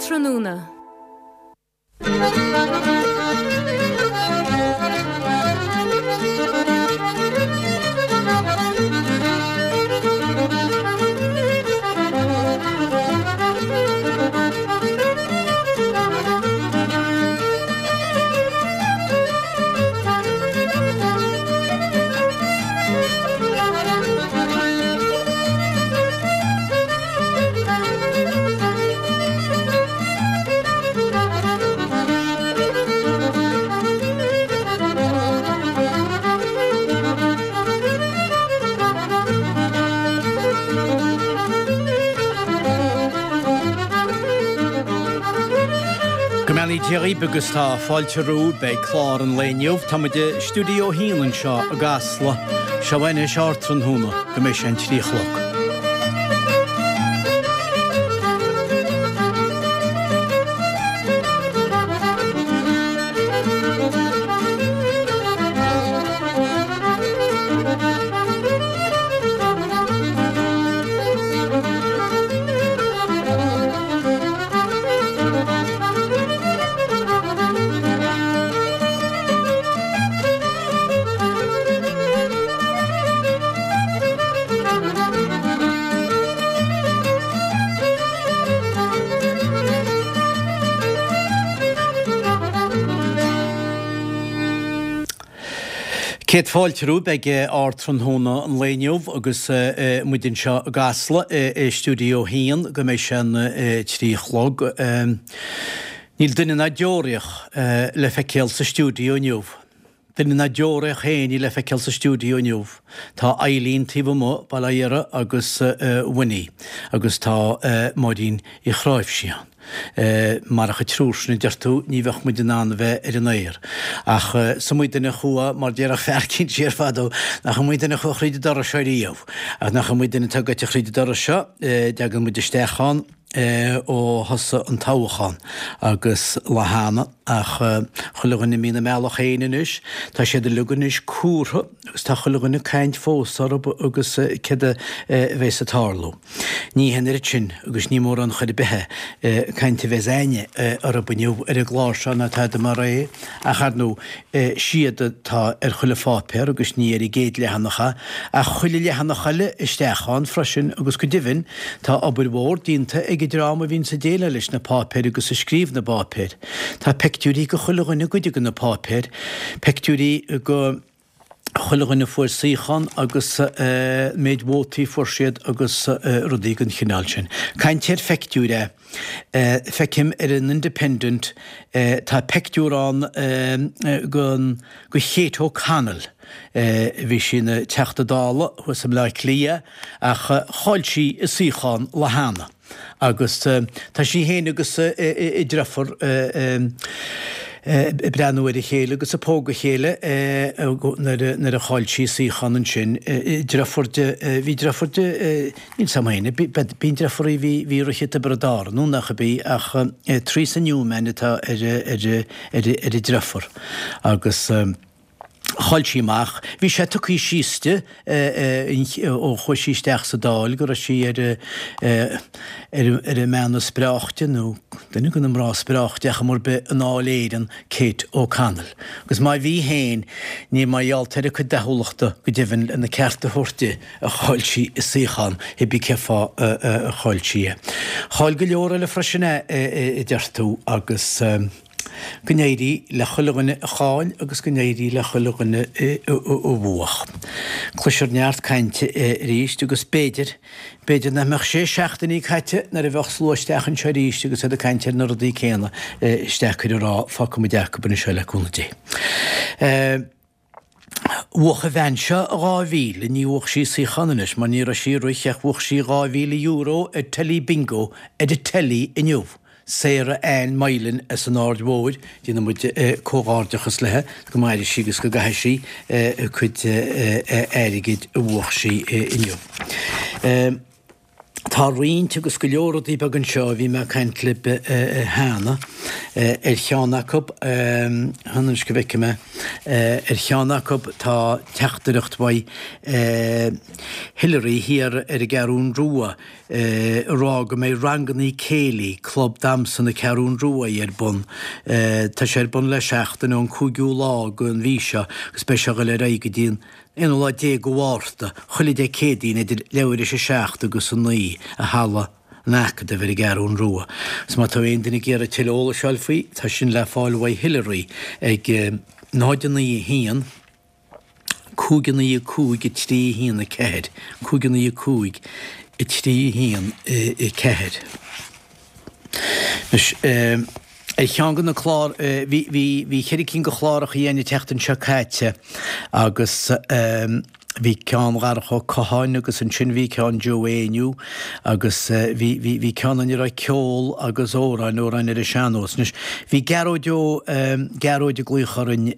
Ardtráthnóna. Go mbeannaí Dia dhaoibh agus tá fáilte romhaibh beidh clár an lae inniu. Tá muid i Stiúideo 1 anseo i gCasla. Seo anois Ardtráthnóna go mbeidh sé an 3 a chlog. Céad fáilte romhaibh ag Ardtráthnóna an lae inniu agus muid anseo i gCasla i Stiúideo 1 go mbeidh sé an 3 a chlog. Níl duine ná deoraíoch le feiceáil sa stiúideo inniu. Duine ná deoraíoch féin níl le feiceáil sa stiúideo inniu. Tá Eileen taobh amuigh, bail ó Dhia uirthi, agus Winnie, agus tá Máirín Uí Chráimhsí ann. Marach an triúr sin, a deir tú, ní bheadh muid in ann a bheith ar an aer. Ach is iomaí duine a chuaigh, mar déarfadh fear eicínt siar fadó, nach iomaí duine a chuaigh thríd an doras seo riamh. Ach nach iomaí duine atá gaibhte thríd an doras seo, dtagann muid isteach ann, ó thosaigh an toghchán agus lá cheana ach chuile dhuine imithe ina mbealach féin anois. Tá siad uilig anois cúrtha agus tá chuile dhuine ag caint fós orthu agus céard a bheas ag tarlú. Ní hin oiread sin agus ní mórán chor ar bith caint a bheas a'inne orthu inniu ar an gclár seo ná tada mar é ach ar ndóigh siad atá ar chuile pháipéar agus ní ar an gcéad leathanach é, ach chuile leathanach eile isteach ann freisin agus go deimhin tá obair mhór déanta ag an dream a bhíonns ag déileáil leis na páipéir agus ag scríobh na bpáipéir. Tá peictiúirí go chuile dhuine goidte go na páipéir, peictiúirí go chuile dhuine a fuair suíochán agus méid vótaí a fuair siad agus rudaí den chineál sin. Caint ar pheictiúir é. Feicim ar an Independent tá peictiúr ann go Kate O'Connell. Bhí sí ina Teachta Dála thuas i mBleá Cliath ach chaill sí a suíochán lá cheana agus tá sí féin agus a deirfiúr ag breathnú ar a chéile agus ag pógadh a chéile nuair a chaill sí a suíochán ansin. Deirfiúr di, bhí deirfiúr di, Níl 's a'm féin, bíonn deirfiúr a bhí ag rith i dTiobraid Árann, nó nach ab í, ach Teresa Newman atá ar ar a deirfiúr. Agus chaill sí amach. Bhí sé tugtha síos di ó chuaigh sí isteach sa Dáil go raibh sí ar ar an mbean is breáichte, nó duine de na mná is breáichte ar chuma ar bith i nDáil Éireann, Kate O'Connell. Agus má bhí féin, ní mar gheall ar a cuid dathúlachta go deimhin lena ceart a thabhairt di. a chaill sí a suíochán, cibé cén fáth a chaill sí é. Chaill go leor eile freisin é, a deir tú, agus go n-éirí le chuile dhuine a chaill agus go n-éirí le chuile dhuine a bhuach. Cloisfear neart cainte arís agus b'fhéidir, b'fhéidir nach mbeadh sé seachtainí caite nuair a bheadh slua isteach anseo arís agus iad ag caint ar na rudaí céanna, is deacair a rá, fágfaidh muid acu anseo le cúnamh Dé. Bhuach an bhean seo 2,000, ní bhuach sí suíochán anois mar ní raibh sí ag rith ach bhuach sí €2,000 ar Telly Bingo ar an teilí inniu. Sarah Ann Moylan as an Aird Mhóir, déanann muid comhghairdeachas léi, go maire sí agus go gcaithe sí a cuid airgid a bhuach sí inniu. Tá roinnt agus go leor rudaí beaga anseo a bhí mé ag caint libh cheana. Ar cheann acu, fan anois go bhfeicfidh mé, ar cheann acu tá teachtaireacht uaidh Hilary thiar ar an gCeathrún Rua ag rá go mbeidh rangannaí céilí, Club Damhsa na Ceathrún Rua ar bun. Tá sé ar bun le seachtain ón 5ú lá den mhí seo agus beidh sé ag dul ar aghaidh go dtí an 11 lá de Mhárta, chuile Dé Céadaoin idir leathuair théis a 7 agus a 9 i Halla an Acadaimh ar an gCeathrún Rua. Agus má tá aon duine ag iarraidh tuilleadh eolais a fháil faoi, tá sin le fáil uaidh Hilary ag 0 9 1 5 9 5 3 1 4, 5 9 5 3 1 4. Anois, ar cheann de na clár, bhí, bhí, bhí cheithre cinn de chláracha againn an tseachtain seo caite agus bhí ceann Dharach Ó Catháin agus ansin bhí ceann Joe Éinniú agus bhí, bhí, bhí ceann ina raibh ceol agus amhráin, amhráin ar an sean-nós. Anois, bhí Gearóid Ó, Gearóid ag glaoch orainn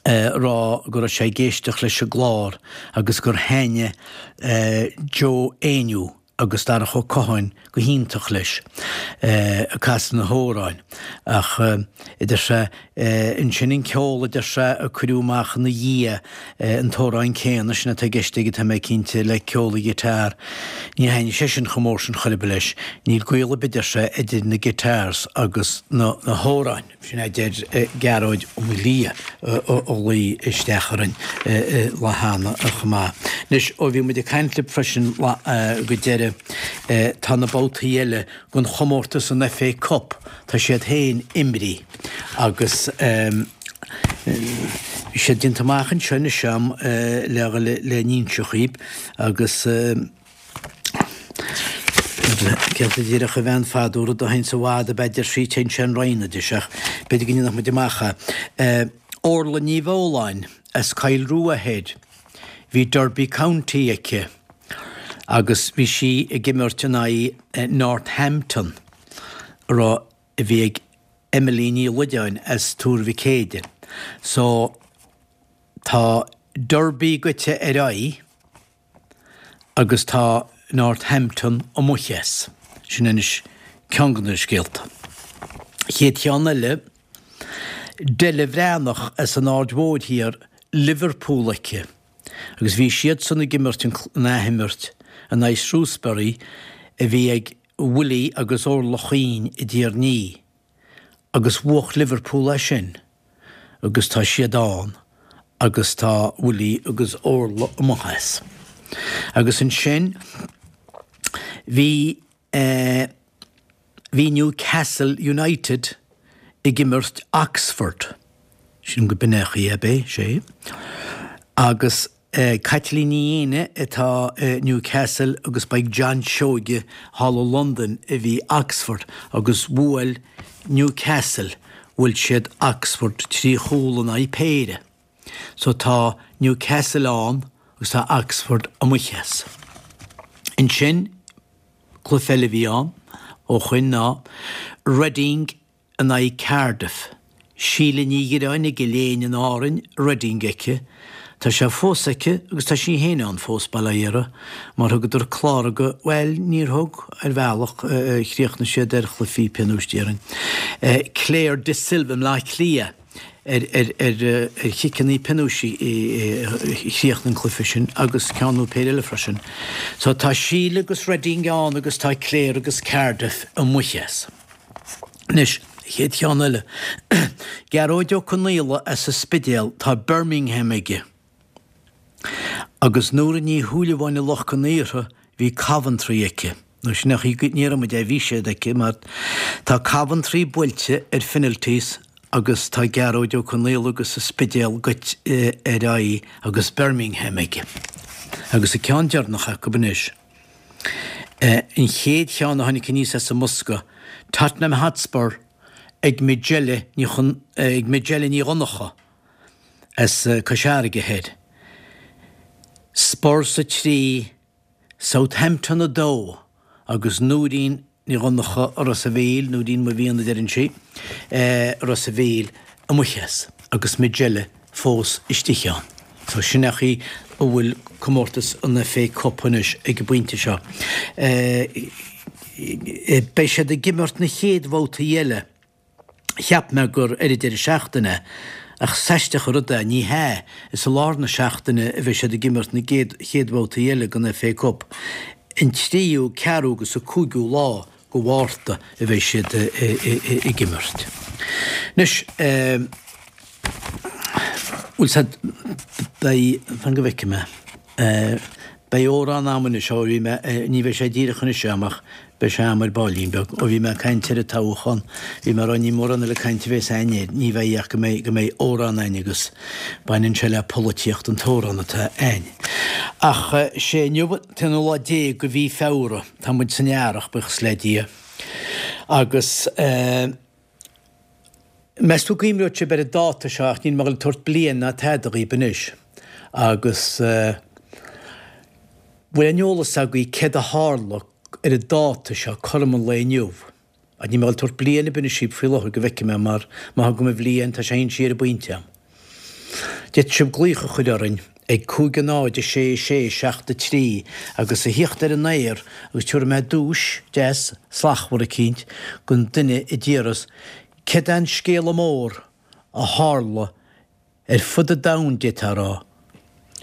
ag rá go raibh sé ag éisteacht leis an gclár agus gur thaitnigh Joe Éinniú agus Darach Ó Catháin go hiontach leis ag casadh na hamhráin ach a deir sé ansin an ceol a deir sé a cuireadh amach ina dhiaidh an t-amhrán céanna sin atá i gceist aige tá mé cinnte le ceol an guitar ní thaitnigh sé sin chomh mór sin chor ar bith leis níl gaol ar bith a deir sé idir na guitars agus na hamhráin. Sin a deir Gearóid Ó Maolaodha a ghlaoigh isteach orainn lá cheana chomh maith. Anois, ó bhí muid ag caint libh freisin go deireadh, tá na babhtaí eile den chomórtas an FA Cup, tá siad féin imrithe agus bhí siad déanta amach anseo anois a'm le le n-inse dhaoibh agus. Céard a déarfadh a bhean fadó, rud a théanns i bhfad ab ea deir sí, téann sé in roinn, a deir sí, ach b'fhéidir go ndéanfadh muid amach é. Orla Ní Bheoláin as Coill Rua Thoir, bhí Derby County aici agus bhí sí ag imirt in aghaidh Northampton a raibh, a bhí ag Emily Ní Loideáin as Tuar Mhic Éadaigh. So tá Derby goite ar aghaidh. agus tá Northampton amuigh as. Sin anois ceann de na scéalta. Chéad cheann eile, Della Bhreathnach as an Aird Mhóir Thiar, Liverpool aici agus bhí siadsan ag imirt an athimirt in aghaidh Shrewsbury a bhí ag Willie agus Orla Chuinn i dTír an Fhia agus bhuach Liverpool é sin. agus tá siad ann agus tá Willie agus Orla amuigh as. Agus ansin bhí eh bhí Newcastle United ag imirt Oxford, sílim go b'in é an chaoi ab é, sé, agus Caitlín Ní Éinne atá i Newcastle agus ba ag John Seoige thall i Londain a bhí Oxford agus bhuail Newcastle, bhuail siad Oxford 3 chúl in aghaidh péire. So tá Newcastle ann agus tá Oxford amuigh as. Ansin, cluiche eile a bhí ann ó shoin ná Reading in aghaidh Cardiff. Síle Ní Dhireáin i gCill Éinne in Árainn, Reading aici. Tá sé fós aici agus tá sí féin ann fós, bail ó Dhia uirthi, mar thugadar clár go, bhuel, níor thug, ar bhealach, chríochnaigh siad ar chluichí pionóis déarfainn. Claire De Silva i mBleá Cliath ar ar ar ar chiceanna pionóis a chríochnaigh an cluiche sin agus ceann nó péire eile freisin. So tá Síle agus Reading ann agus tá Claire agus Cardiff amuigh as. Anois, an chéad cheann eile. Gearóid Ó Conaola as an Spidéal, tá Birmingham aige. Agus Nóra Ní Shúilleabháin i Loch Con Aortha, bhí Coventry aici. Nó sin é an chaoi go ndéarfaidh muid é, bhí siad aici, mar tá Coventry buailte ar phenalties agus tá Gearóid Ó Conaola agus an Spidéal goite ar aghaidh agus Birmingham aige. Agus an ceann deireanach acu anois. An chéad cheann a tháinig aníos as an mbosca, Tottenham Hotspur ag Majella Ní ag Majella Ní Dhonncha as Cois Fharraige Thoir. Spurs 3, Southampton 2 agus Nóirín Ní Dhonncha Ros a' Mhíl, Nóirín mo mhian a deireann sí, Ros a' Mhíl amuigh as agus Majella fós istigh ann. So sin é an chaoi. a bhfuil comórtas an FA Cup anois ag an bpointe seo. Beidh siad ag imirt na chéad bhabhtaí eile. Cheap mé gur ar an deireadh seachtaine, ach is aisteach an rud é, ní hea, is i lár na seachtaine a bheidh siad ag imirt na gcéad bhabhtaí eile den FA Cup. An tríú, ceathrú agus an cúigiú lá de Mhárta a bheidh siad ag imirt. Anois, bhfuil said, beidh, fan go bhfeicfidh mé, beidh amhrán a'm anois, ó bhí mé, ní bheidh sé díreach anois a'm ach beidh sé a'm ar baillín beag, ó bhí mé ag caint ar an toghchán, bhí mé ag rá ní mórán eile cainte a bhéas a'inn air, ní bheidh ach go mbeidh, go mbeidh amhrán a'inn agus baineann sé le polaitíocht an t-amhrán atá a'inn. Ach sé inniu an t-aonú lá déag de mhí Feabhra. Tá muid san earrach, buíochas le Dia. Agus meas tú an gcuimhneoidh sibh ar an dáta seo ach níl mé ag dul ag tabhairt bliain ná tada dhaoib anois. Agus bhfuil aon eolas agaibh céard a tharla ar an dáta seo cothrom an lae inniu? Ach níl mé ag dul ag tabhairt bliain ar bith anois dhaoib faoi láthair go bhfeicfidh mé mar má thugaim an bhliain tá sé inste ar an bpointe a'm. D'fhéadfadh sibh glaoch a chur orainn ag 5 0 6 6 7 3 agus a thíocht ar an aer agus tabharfaidh mé duais deas slachtmhar eicínt don duine a déarfas céard é an scéala mór a tharla ar fud an domhain d'fhéadfá a rá.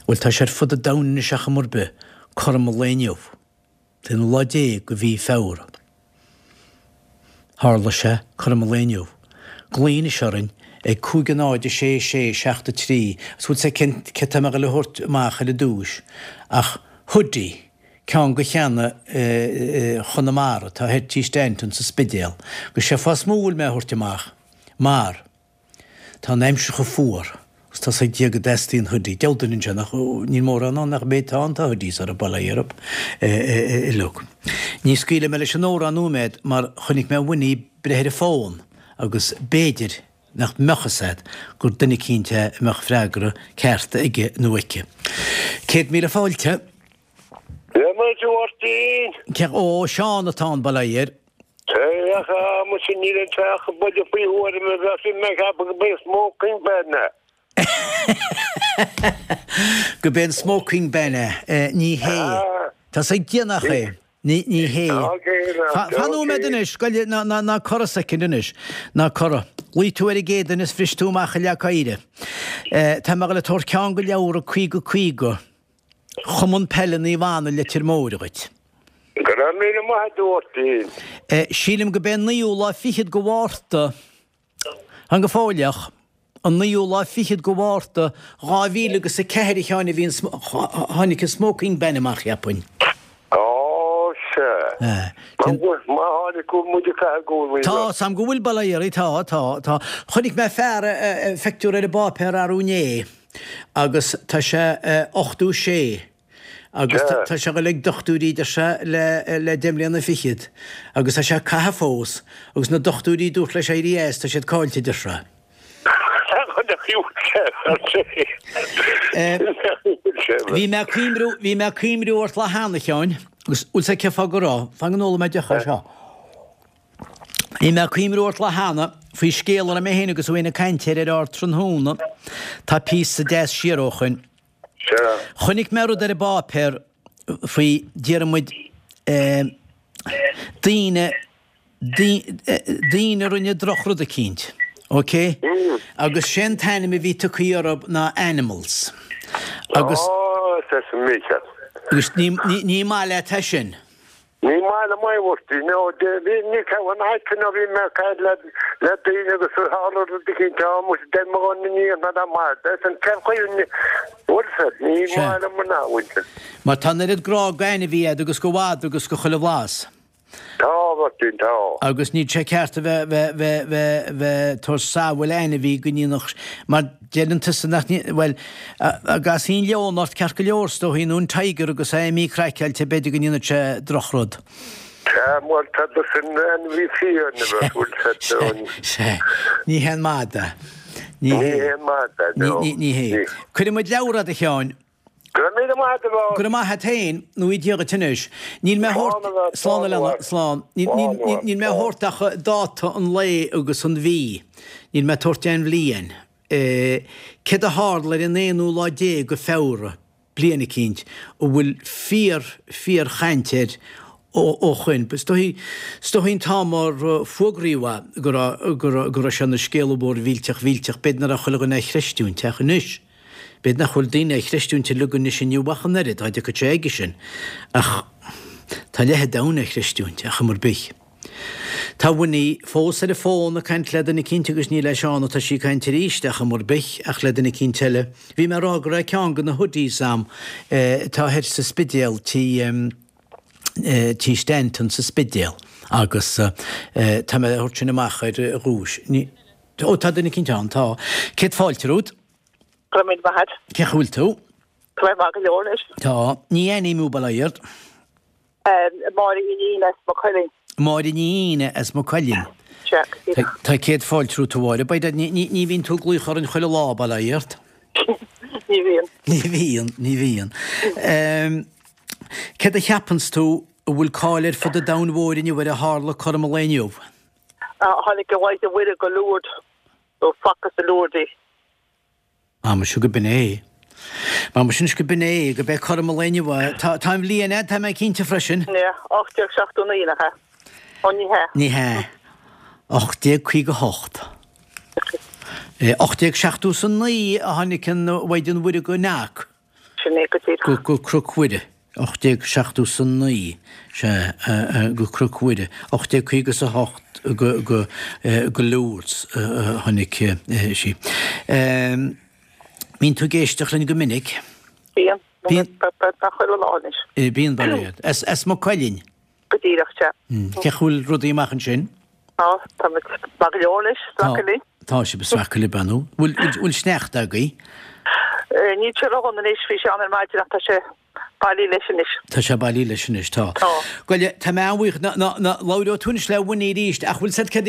Bhuel tá sé ar fud an domhain anois ar chuma ar bith, cothrom an lae inniu. An t-aonú lá déag de mhí Feabhra. Tharla sé cothrom an lae inniu. Glaoigh anois orainn ag 5 0 6 6 7 3 agus bhfuil 's a'd cén céard tá mé ag dul a thabhairt amach ar an duais ach hoodie, ceann de cheanna Chonamara atá thoir tí Stanton sa Spidéal. Agus sé fáth is mó a bhfuil mé a thabhairt amach mar. Tá an aimsir chomh fuar agus tá's ag Dia go dteastaíonn hoodie. Deabhal duine anseo nach, níl mórán ann nach mbeidh, tá ann, tá hoodies orthu, bail ó Dhia orthu uilig. Ní scaoilfidh mé leis an amhrán nóiméad mar chonaic mé Winnie ag breith ar an bhfón agus b'fhéidir nach mbeadh fhios a'd gur duine eicínt é a mbeadh freagra ceart aige nó aici. 100,000 fáilte. Dia duit, a Mháirtín. Cé, ó, Seán atá ann, bail ó Dhia air. Ach muise níl an teach buille faoi thuairim a bheadh sin mé ag ceapadh go b'é smoking ban é. Go b'é an smoking ban é. Ní hé. Tá's ag Dia nach é. Ní ní hé. Fan nóiméad anois, goile ná ná ná corra soicind anois. Ná corra. Ghlaoigh tú ar an gcéad duine is bhris tú amach i leac oighre. Tá mé ag dul ag tabhairt ceann de leabhra 50 50. Chumann Peile Naomh Anna Leitir Móir dhuit. Go raibh míle maith agat a Mháirtín. Sílim go b'é an naoú lá fichead go Mhárta, fan go fóilleach, an naoú lá fichead go Mhárta 2000 agus 4 a Sheáin a bhí an, tháinig an smoking ban amach cheapfainn. Ó sea. Má tháinig go bhfuil muid ag caitheamh gúnaí. Tá, 's a'm go bhfuil, bail ó Dhia oraibh, tá, tá, tá. Chonaic mé fear, phictiúr ar an bpáipéar arú inné. agus tá sé 86 agus tá sé ag dul ag dochtúirí deir sé le deich mbliana fichead agus tá sé ag caitheamh fós agus na dochtúirí dúirt leis éirí as tá siad caillte deir sé. Bhí mé ag cuimriú bhí mé ag cuimriú ort lá cheana a Sheáin agus bhfuil 's a'd cén fáth go raibh, fan go n-ólfaidh mé deoch as seo. Bhí mé ag cuimriú ort lá cheana faoi scéal a raibh mé féin agus Wayne ag caint air ar ár tráthnóna. Tá píosa deas siar ó shoin. Chonaic mé rud ar an bpáipéar faoi, déarfaidh muid, daoine, daoine a rinne drochrud eicínt, ok? Agus sé an t-ainm a bhí tugtha orthu ná animals. Agus. Agus ní, ní maith leat é sin. Ní maith liom é, a Mháirtín. Nó bhí ní ceann aice nó bhí mé ag caint le le daoine agus tharla rud eicínt ann muise deir mo dhuine ní dhéanfá dá maith é san cén chaoi an bhfuil fhios ní maith liom an athmhuintir. Mar tá an oiread grá d'ainmhí a'd agus do mhadra agus do chuile bhlas. Tá, a Mháirtín, tá. Agus níl sé ceart a bheith bheith bheith bheith bheith tabhairt samhail ainmhí go ndéanfadh mar Deireann tusa nach ndéan, bhuel, dá gcasfaí an leon ort ceart go leor is dóichí, nó an tiger agus é imithe craiceáilte, b'fhéidir go ndéanfadh sé drochrud. Sea, bhuel, tá do sin ainmhí fiáin a bheith bhfuil sé ann. Sea, ní hé an madadh. Ní hé an madadh, no. Ní hé. Cuirfidh muid leabhar a'd a Sheáin. Go raibh míle maith agat, a Mháirtín. Go raibh maith a't féin, nó Dia dhuit anois. Níl mé a thabhairt, slán a leana, slán. Níl mé a thabhairt ach dáta an lae agus an mhí. Níl mé ag tabhairt aon bhliain. Céard a tharla ar an aonú lá déag de Feabhra, bliain eicínt a bhfuil fíor, fíor-chaint air ó shoin. Is dóichí, is dóichí an t-am ar fuagraíodh é go raibh, go raibh, go raibh sé ina scéala mhór mhillteach mhillteach, b'fhéidir nach raibh chuile dhuine á chreistiúint ach anois, b'fhéidir nach bhfuil daoine á chreistiúint uilig anois inniu ach an oiread, dá dtiocfadh sé aige sin. Ach tá leath an domhain á chreistiúint, ar chuma ar bith. Tá Winnie fós ar an bhfón ag caint le duine eicínt agus ní le Seán atá sí ag caint arís ar chuma ar bith ach le duine eicínt eile. Bhí mé ag rá go raibh ceann de na hoodies a'm atá thoir sa Spidéal tí tí Stanton sa Spidéal agus tá mé a thabhairt sin amach ar dhuais. Ní, ó tá duine eicínt ann, tá. Céad fáilte romhat. Go raibh míle maith agat. Cén chaoi a bhfuil tú? Tá mé maith go leor anois. Tá. Ní aithním thú bail ó Dhia ort. Máire Ní Fhíne as Maigh Cuilinn. Máire Ní Fhíne as Maigh Cuilinn. Sea, go díreach. Tá céad fáilte romhat a Mháire. By dad, ní bhíonn tú ag glaoch orainn chuile lá, bail ó Dhia ort. Ní bhíonn. Ní bhíonn, ní bhíonn. Céard a cheapanns tú a bhfuil cáil ar fud an domhain mhóir inniu ar a tharla cothrom an lae inniu? Tháinig an Mhaighdean Mhuire go Lourdes, nó facthas i Lourdes í. Muise go b'in é. Muise anois go b'in é, go b'é cothrom an lae inniu é. Tá, tá an bhliain a'd, tá mé cinnte freisin. Yeah, 1879, nach ea? Ó, ní hea. Ní hea. 1858. 1879 a tháinig an Mhaighdean Mhuire go Knock. Sin é go díreach. Go Cnoc Mhuire, 1879, sea, go Cnoc Mhuire, 1858 go go Lourdes a tháinig sí. Mbíonn tú ag éisteacht linn go minic? Bíonn. Bíonn. Chuile lá anois. Bíonn, bail ó Dhia ort. As Maigh Cuilinn? Go díreach, sea. Cén chaoi a bhfuil rudaí amach ansin? Tá, tá muid maith go leor anois, ag sracadh linn. Tá sibh ag sracadh libh, an bhfuil? Bhfuil sneachta agaibh? Níl sé ródhona anois, bhí sé ann ar maidin ach tá sé bailithe leis anois. Tá sé bailithe leis anois, tá. Tá. Bhuel, tá mé an-bhuíoch, ná labhróidh tú anois le Winnie arís, ach bhfuil 'fhios a'd céard,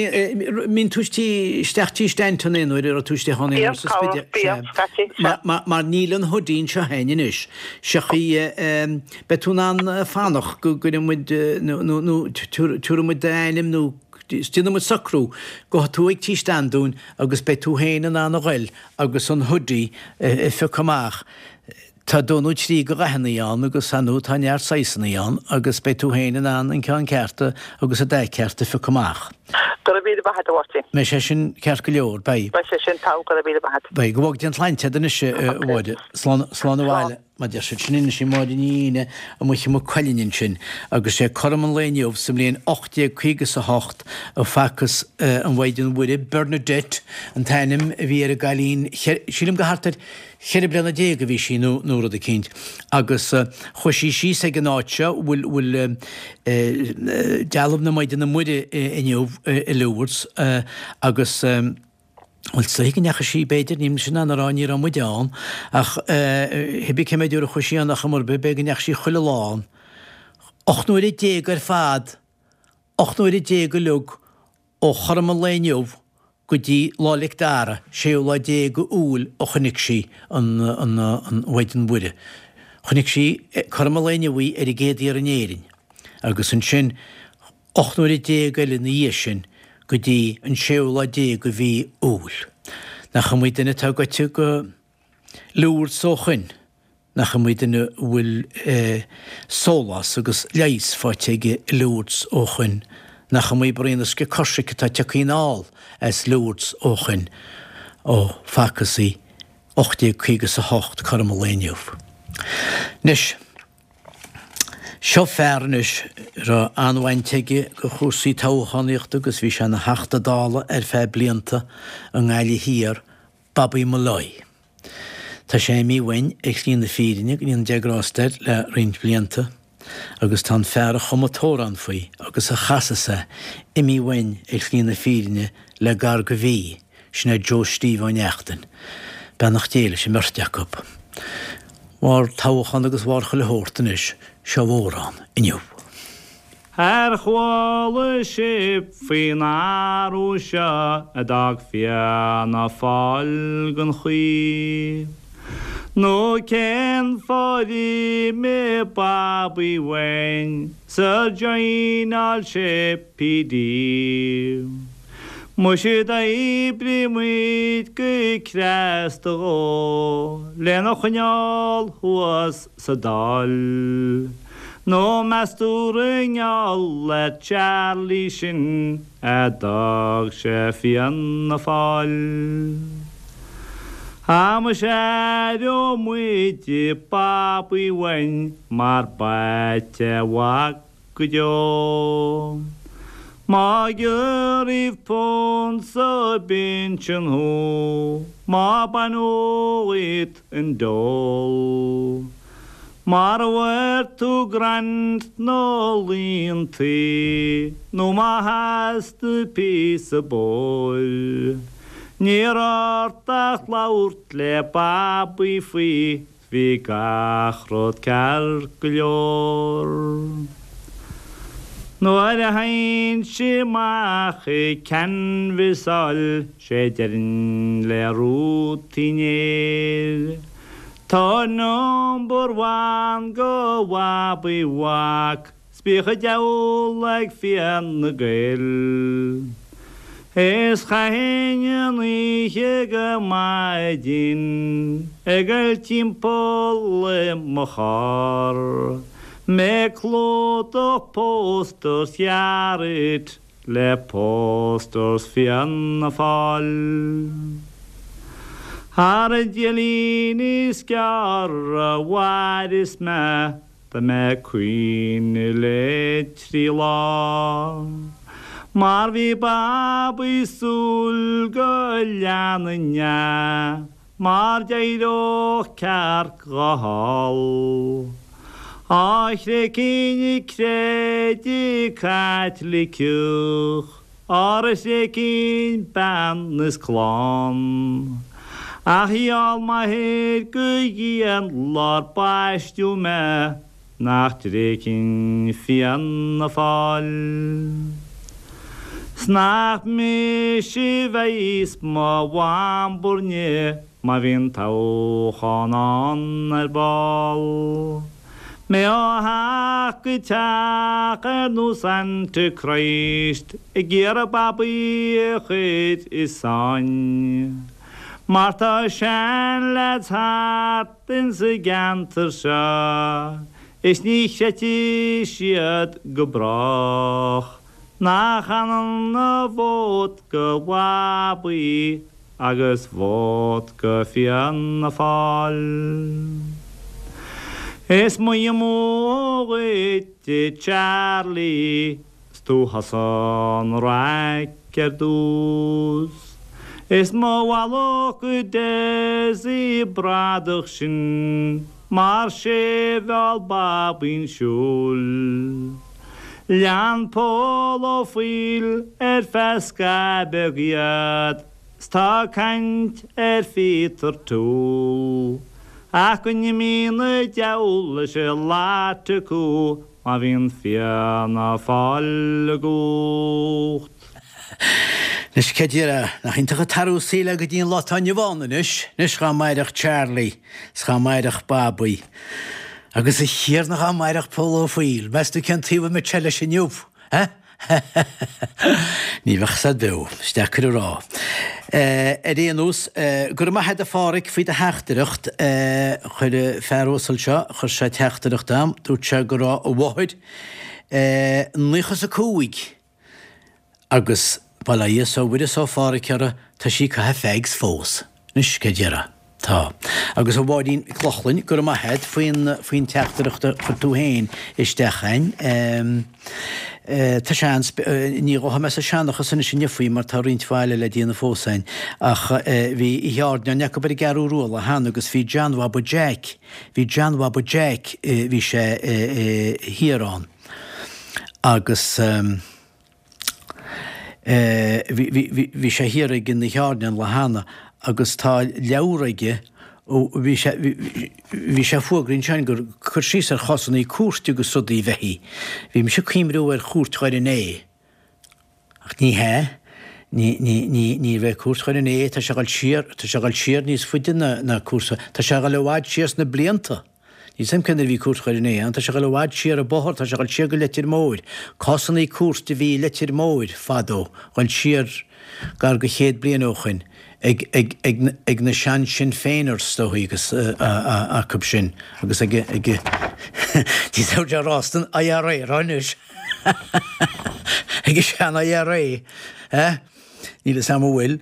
mbíonn tú isteach tí Stanton aon uair, a raibh tú istigh ann aon uair sa Spidéal? Bíonn, bíonn, scaití, sea. Mar níl an hoodie anseo a'inn anois. Seo í, Beidh tú in ann fanacht go gcuirfidh muid, nó tabharfaidh muid d'ainm nó déanfaidh muid socrú go tú ag Tí Standúin agus beidh tú féin in ann a ghoil agus an hoodie a phiocadh amach. Tá dó nó trí de dhathannaí ann agus ar ndóigh tá neart saghsannaí ann agus beidh tú féin in ann an ceann ceart agus an dath ceart a phiocadh amach. Go raibh míle maith agat, a Mháirtín. Mbeidh sé sin ceart go leor, beidh. Beidh sé sin togha, go raibh míle maith agat. Beidh. Go bhfága Dia an tsláinte agat anois, a Mháire. Slán, slán abhaile. Mar deir siad sin anois í Máire Ní Fhíne amuigh i Maigh Cuilinn ansin agus sé cothrom an lae inniu sa mbliain 1858 a facthas an Mhaighdean Mhuire, Bernadette an t-ainm a bhí ar an gcailín, sílim go thart ar cheithre bliana déag a bhí sí nó nó rud eicínt agus chuaigh sí síos ag an áit seo bhfuil bhfuil dealbh na Maighdine Muire inniu i Lourdes agus Bhuel, is dóichí go ndeachaigh sí, b'fhéidir, níl mise in ann a rá, ní raibh muide ann, ach cibé cé mhéad uair a chuaigh sí ann ar chuma ar bith, b'fhéidir go ndeachaigh sí chuile lá ann. 18 nuaire ar fad, 18 nuaire uilig ó chothrom an lae inniu go dtí Lá 'le Dara, séú lá déag Iúil a chonaic sí an Mhaighdean Mhuire. Chonaic sí cothrom an lae inniu í ar an gcéad iarraidh in Éirinn agus ansin 18 nuaire eile ina dhiaidh sin go dtí an séú lá déag de mhí Iúil. Nach iomaí duine atá goite go Lourdes ó shoin, nach iomaí duine a bhfuil sólás agus leigheas faighte aige i Lourdes ó shoin, nach iomaí braon uisce coisricthe atá tioctha anall as Lourdes ó shoin, ó facthas í 1858 cothrom an lae inniu. Anois. Seo fear anois a raibh an-bhaint aige go chúrsaí toghchánaíochta agus bhí sé ina Theachta Dála ar feadh blianta i nGaillimh Thiar, Bobby Molloy. Tá sé imithe uainn ar shlí na fírinne, go ndéana Dia grásta air, le roinnt blianta agus tá an fear a chum an t-amhrán faoi agus a chasas é imithe uainn ar shlí na fírinne le gar go mhí, sin é Joe Steve Ó Neachtain. Beannacht Dé leis an mbeirt acu. Bharr toghchán agus bharr chuile shórt anois, seo amhrán inniu. Ar chuala sibh faoin athrú seo a d'fhág Fianna Fáil gan chaoi? Nó cén fáth ar imigh Babaí uainn 's ar joineáil sé PD? Muise d'oibrigh muid go cneasta dhó lena choinneáil thuas sa Dáil. Nó meas tú gur i ngeall ar Charlie sin a d'fhág sé Fianna Fáil? Á muise aireoidh muid Babaí uainn mar b'ait a mhac go deo. Má giorraíodh punt sa bpinsean thú, má baineadh dhíot an dole, mara bhfuair tú grant nó liúntas, nó má theastaigh píosa bóthair, ní raibh ort ach labhairt le Babaí faoi Bhí gach rud ceart go leor. Nuair a théinnse amach ag canbhasáil sé deirinn le Ruth Uí Néill, Tabhair number one go Bhabaí Mhac 's bíodh an diabhal ag Fianna Gael. Is chaithinn an oíche go maidin ag goil timpeall i mo charr, mé ag clúdach posters Charity le posters Fianna Fáil. Ar an diailín is gearr a mhaireas mé Tá mé ag caoineadh le trí lá Mar bhí Babaí súil go leanfainn é Mar d'éireodh cearc dhó thall Á thréigfinn an creideamh Caitliceach Ara thréigfinn bean is clann. Ach gheall m'athair go dian lár baisteadh mé nach dtréigfinn Fianna Fáil. 'S nach mise bheas mo bhambairne má bhíonn toghchán ann ar ball. Mé ó theach go teach ar nós Antichrist ag iarraidh Babaí a chur i sáinn. Mar tá seanleaids thart insa gceantar seo is ní chreidfidh siad go brách nach ionann a vóta go Bhabaí agus vóta go Fianna Fáil. Is moille amú dhuit a Charlie 's tú thusa an raic ar dtús. Is mo mhallacht go Dessie bradach sin mar 'sé a mheall Babaí 'un siúil. Lean Pól Ó Foighil ar feadh scaitheamh beag iad 's tá caint ar Phíotar Toole ach go n-imí na deabhal leis an lot acu má bhíonn Fianna Fáil i gcumhacht. Anois cé déarfá, nach iontach an t-athrú saoil é go dtí an lá atá inniu ann anois, anois dhá mairfeadh Charlie 's dhá mairfeadh Babaí. Agus a Thiarna dhá mairfeadh Pól Ó Foighil, meas tú cén taobh a mbeadh sé leis inniu, eh? Ní bheadh said beo, is deacair a rá. Ar aon nós, go raibh maith agat a Pháraic faoi do theachtaireacht. Chuir an fear uasal seo, chuir sé teachtaireacht a'm, dúirt sé go raibh a mháthair 95 agus bail ó Dhia 's ó Mhuire 's ó Pháraic uirthi, tá sí ag caitheamh fags fós. Anois, cé déarfá? Tá. Agus a Mháirín Mhic Lochlainn, go raibh maith a't faoin, faoin teachtaireacht a chuir tú féin isteach a'inn. Tá seans, ní ghabhfaidh mé sa seanchas anois inniu faoi mar tá roinnt mhaith eile le déanamh fós a'inn, ach bhí oíche airneáin acu ar an gCeathrú Rua lá cheana agus bhí John Bhaba Jeaic, bhí John Bhaba Jeaic, bhí sé thiar ann agus. Bhí sé thiar ag an oíche airneáin an lá cheana agus tá leabhar aige ó bhí sé bhí sé ag fógra ansin gur cur síos ar chásannaí cúirte agus rudaí a bheith í. Bhí mise ag cuimhniú ar chúirt Dhoire an Fhéich ach ní hea, ní ní ní ní raibh cúirt Dhoire an Fhéich, tá sé ag dul siar tá sé ag dul siar níos faide ná ná cúrsa tá sé ag dul i bhfad siar sna blianta. Níl 's a'm cé nuair a bhí Cúirt Dhoire an Fhéich ann, tá sé ag dul i bhfad siar an bóthar, tá sé ag dul siar go Leitir Móir. Cásannaí cúirte a bhí i Leitir Móir fadó, dhul siar gar go chéad bliain ó shoin, ag, ag, ag, ag na sean Sinn Féiners is dóichí agus acub sin agus ag, ag, ní raibh sé rá san IRA rá anois ag an sean IRA, eh? Níl 'fhios a'm an bhfuil,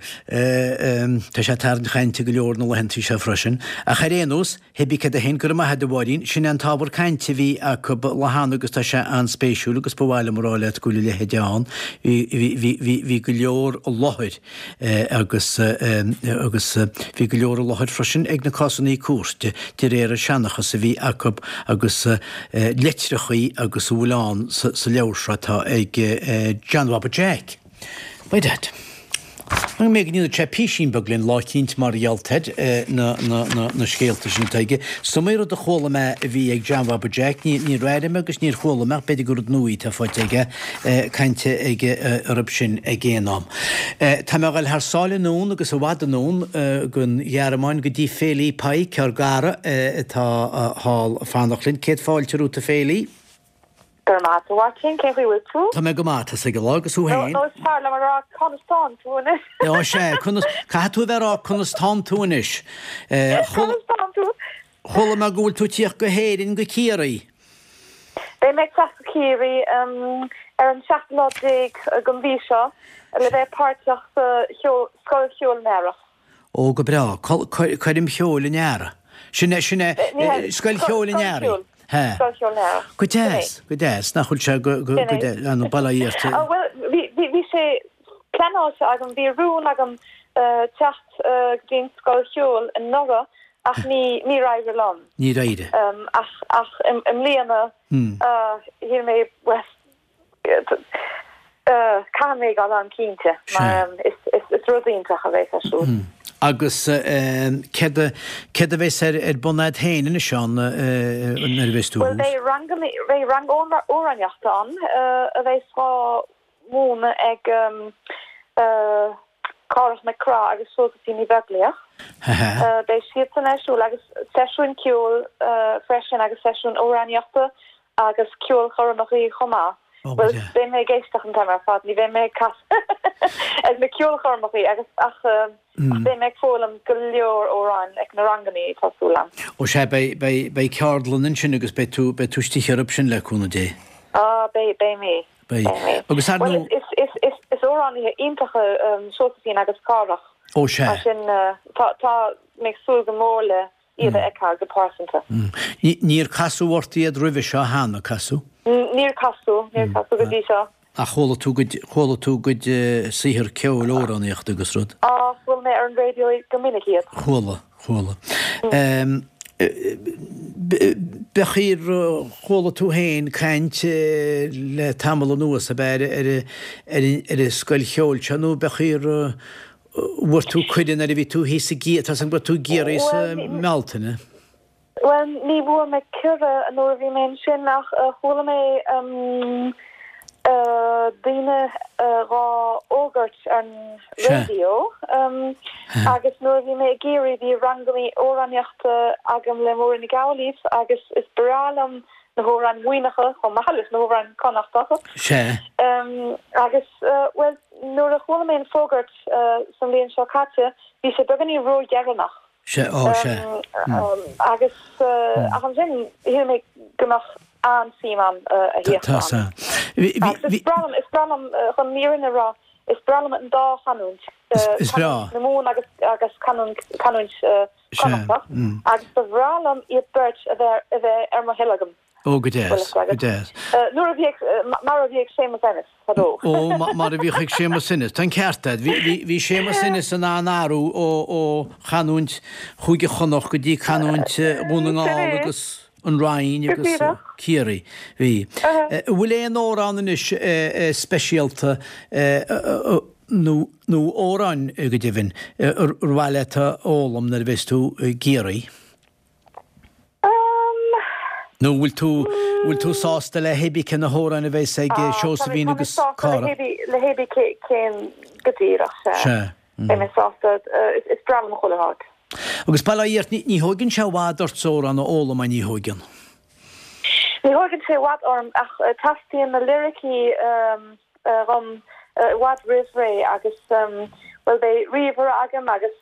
tá sé ag tarraingt chainte go leor na laethantaí seo freisin. Ach ar aon nós, hébí céard é féin, go raibh maith a'd a Mháirín, sin é an t-ábhar cainte a bhí acu lá cheana agus tá sé an-spéisiúil agus ba mhaith liom a rá leat go bhfuil a leithéid ann. Bhí, bhí, bhí, bhí, bhí go leor i láthair agus, agus bhí go leor i láthair freisin ag na cásannaí cúirte de réir an seanchas a bhí acu agus litreachaí agus a bhfuil ann sa, sa leabhar seo atá ag John Bhaba Jack. By dad. An mbeidh go ndéanfaidh sé písín beag linn lá eicínt mar gheall ar na, na, na, na scéalta sin atá aige. Is iomaí rud a chuala mé a bhí ag John Bhaba Jack, ní, níor airigh mé agus níor chuala mé ach b'fhéidir gur rud nua atá faighte aige, cainte aige orthu sin ag aon am. Tá mé a dhul thar sáile anonn agus i bhfad anonn gon Ghearmáin go dtí Féilí Pike, ár gcara atá thall ag fanacht linn. Céad fáilte romhat a Féilí. Go raibh maith agat, a Mháirtín, cén chaoi a bhfuil tú? Tá mé go maith, tá 's ag an lá, agus thú féin? Nó is fearr liom a rá conas tánn tú anois? Ó sea, conas, caithfidh tú a bheith ag rá conas tánn tú anois. Conas tánn tú? Chuala mé go bhfuil tú ag tíocht go hÉirinn, go Ciarraí. Beidh mé ag teacht go Ciarraí ar an seachtú lá déag den mhí seo le bheith páirteach sa Scoil Cheoil an Earraigh. Ó, go breá. Coirm Cheoil an Earraigh. Sin é, sin é, Scoil Cheoil an Earraigh. He. Scoil Cheoil an Earraigh. Go deas, go deas. Nach bhfuil sé go, go, go deas, an Baile Átha Cliath. Bhuel, bhí, bhí, bhí sé pleanáilte agam, bhí rún agam teacht go dtí an Scoil Cheoil anuraidh ach ní, níor éirigh liom. Níor éirigh. Ach, ach i mbliana, shíl mé, bhuel, Caithfidh mé dul ann cinnte, mar is rud iontach a bheas ar siúl. Agus céard a bheas ar bun a'd féin anois ann nuair a bheas tú thuas? Bhuel, beidh ranganna, beidh rang amhránaíochta ann a bheas á mhúineadh ag Cárthach Mac Craith agus Seosaimhín Ní Bheaglaoich. Beidh siadsan ar siúl agus seisiúin ceoil freisin agus seisiúin amhránaíochta agus ceolchoirmeachaí chomh maith. Bhuel, beidh mé ag éisteacht an t-am ar fad, ní bheidh mé ag casadh ag na ceolchoirmeachaí agus ach beidh mé ag foghlaim go leor amhráin ag na rangannaí, tá súil agam. Ó sea, beidh, beidh, beidh ceardlann ansin agus beidh tú, beidh tú istigh orthu sin le cúnamh Dé. Á, beidh, beidh mé. Beidh. Agus ar ndóigh. Bhuel, is, is, is, is amhránaithe iontacha Seosaimhín agus Cárthach. Ó sea. Mar sin, tá, tá mé ag súil go mór le iad a fheiceáil go pearsanta. Níor casadh ort iad roimhe seo cheana, casadh? Níor casadh, níor casadh go dtí seo. Ach chuala tú gcuid, chuala tú gcuid saothar ceoil, amhránaíochta agus rud? Á, chuala mé ar an raidió go minic iad. Chuala, chuala. B'fhéidir chuala tú féin caint le tamall anuas, ab ea, ar, ar, ar an scoil cheoil seo nó b'fhéidir Bhfuair tú cuireadh nuair a bhí tú thíos i gCiarraí, tá 's agam go raibh tú i gCiarraí sa mBealtaine. Bhuel, ní bhfuair mé cuireadh nuair a bhí mé ansin ach chuala mé daoine dhá fhógairt ar an raidió agus nuair a bhí mé i gCiarraí bhí rangannaí amhránaíochta agam le Máirín Nic Amhlaoibh agus is breá liom na hamhráin Mhuimhneacha chomh maith leis na hamhráin Connachtacha. Sea. Agus, bhuel, nuair a chuala mé an fógairt sa mbliain seo caite, bhí sé beagáinín ródheireanach. Sea, á, sea. Agus, ach ansin, shíl mé go mbeadh an-suim a'm a thíocht ann. Tá, sea. Agus is breá liom, is breá liom, chun an fhírinne a rá, is breá liom an dá chanúint. Is breá. Canúint na Mumhan agus, agus canúint, canúint Connachtach agus ba bhreá liom iad beirt a bheith a bheith ar mo thoil agam. Ó, go deas, go deas. Nuair a bhíodh, mar a bhí ag Séamus Ennis fadó. Ó, mar a bhíodh ag Séamus Ennis. Tá an ceart agat. Bhí, bhí, bhí Séamus Ennis in ann athrú ó, ó chanúint Chúige Chonnacht go dtí canúint Dhún na nGall agus an Rinn agus Ciarraí. Bhí. An bhfuil aon amhrán anois speisialta nó, nó amhráin go deimhin, ar mhaith leat a fhoghlaim nuair a bheas tú i gCiarraí? Nó bhfuil tú, bhfuil tú sásta le hébí cé na hamhráin a bheas ag Seosaimhín agus Cárthach? Le hébí cén go díreach, sea. Sea. Beidh mé sásta, is breá liom chuile áit. Agus bail ó Dhia ort, ní thóigeann sé i bhfad ort amhrán a fhoghlaim, ní thóigeann? Ní thóigeann sé i bhfad orm ach teastaíonn na liricí dhom i bhfad roimh ré agus, bhuel, beidh ríomhaire agam agus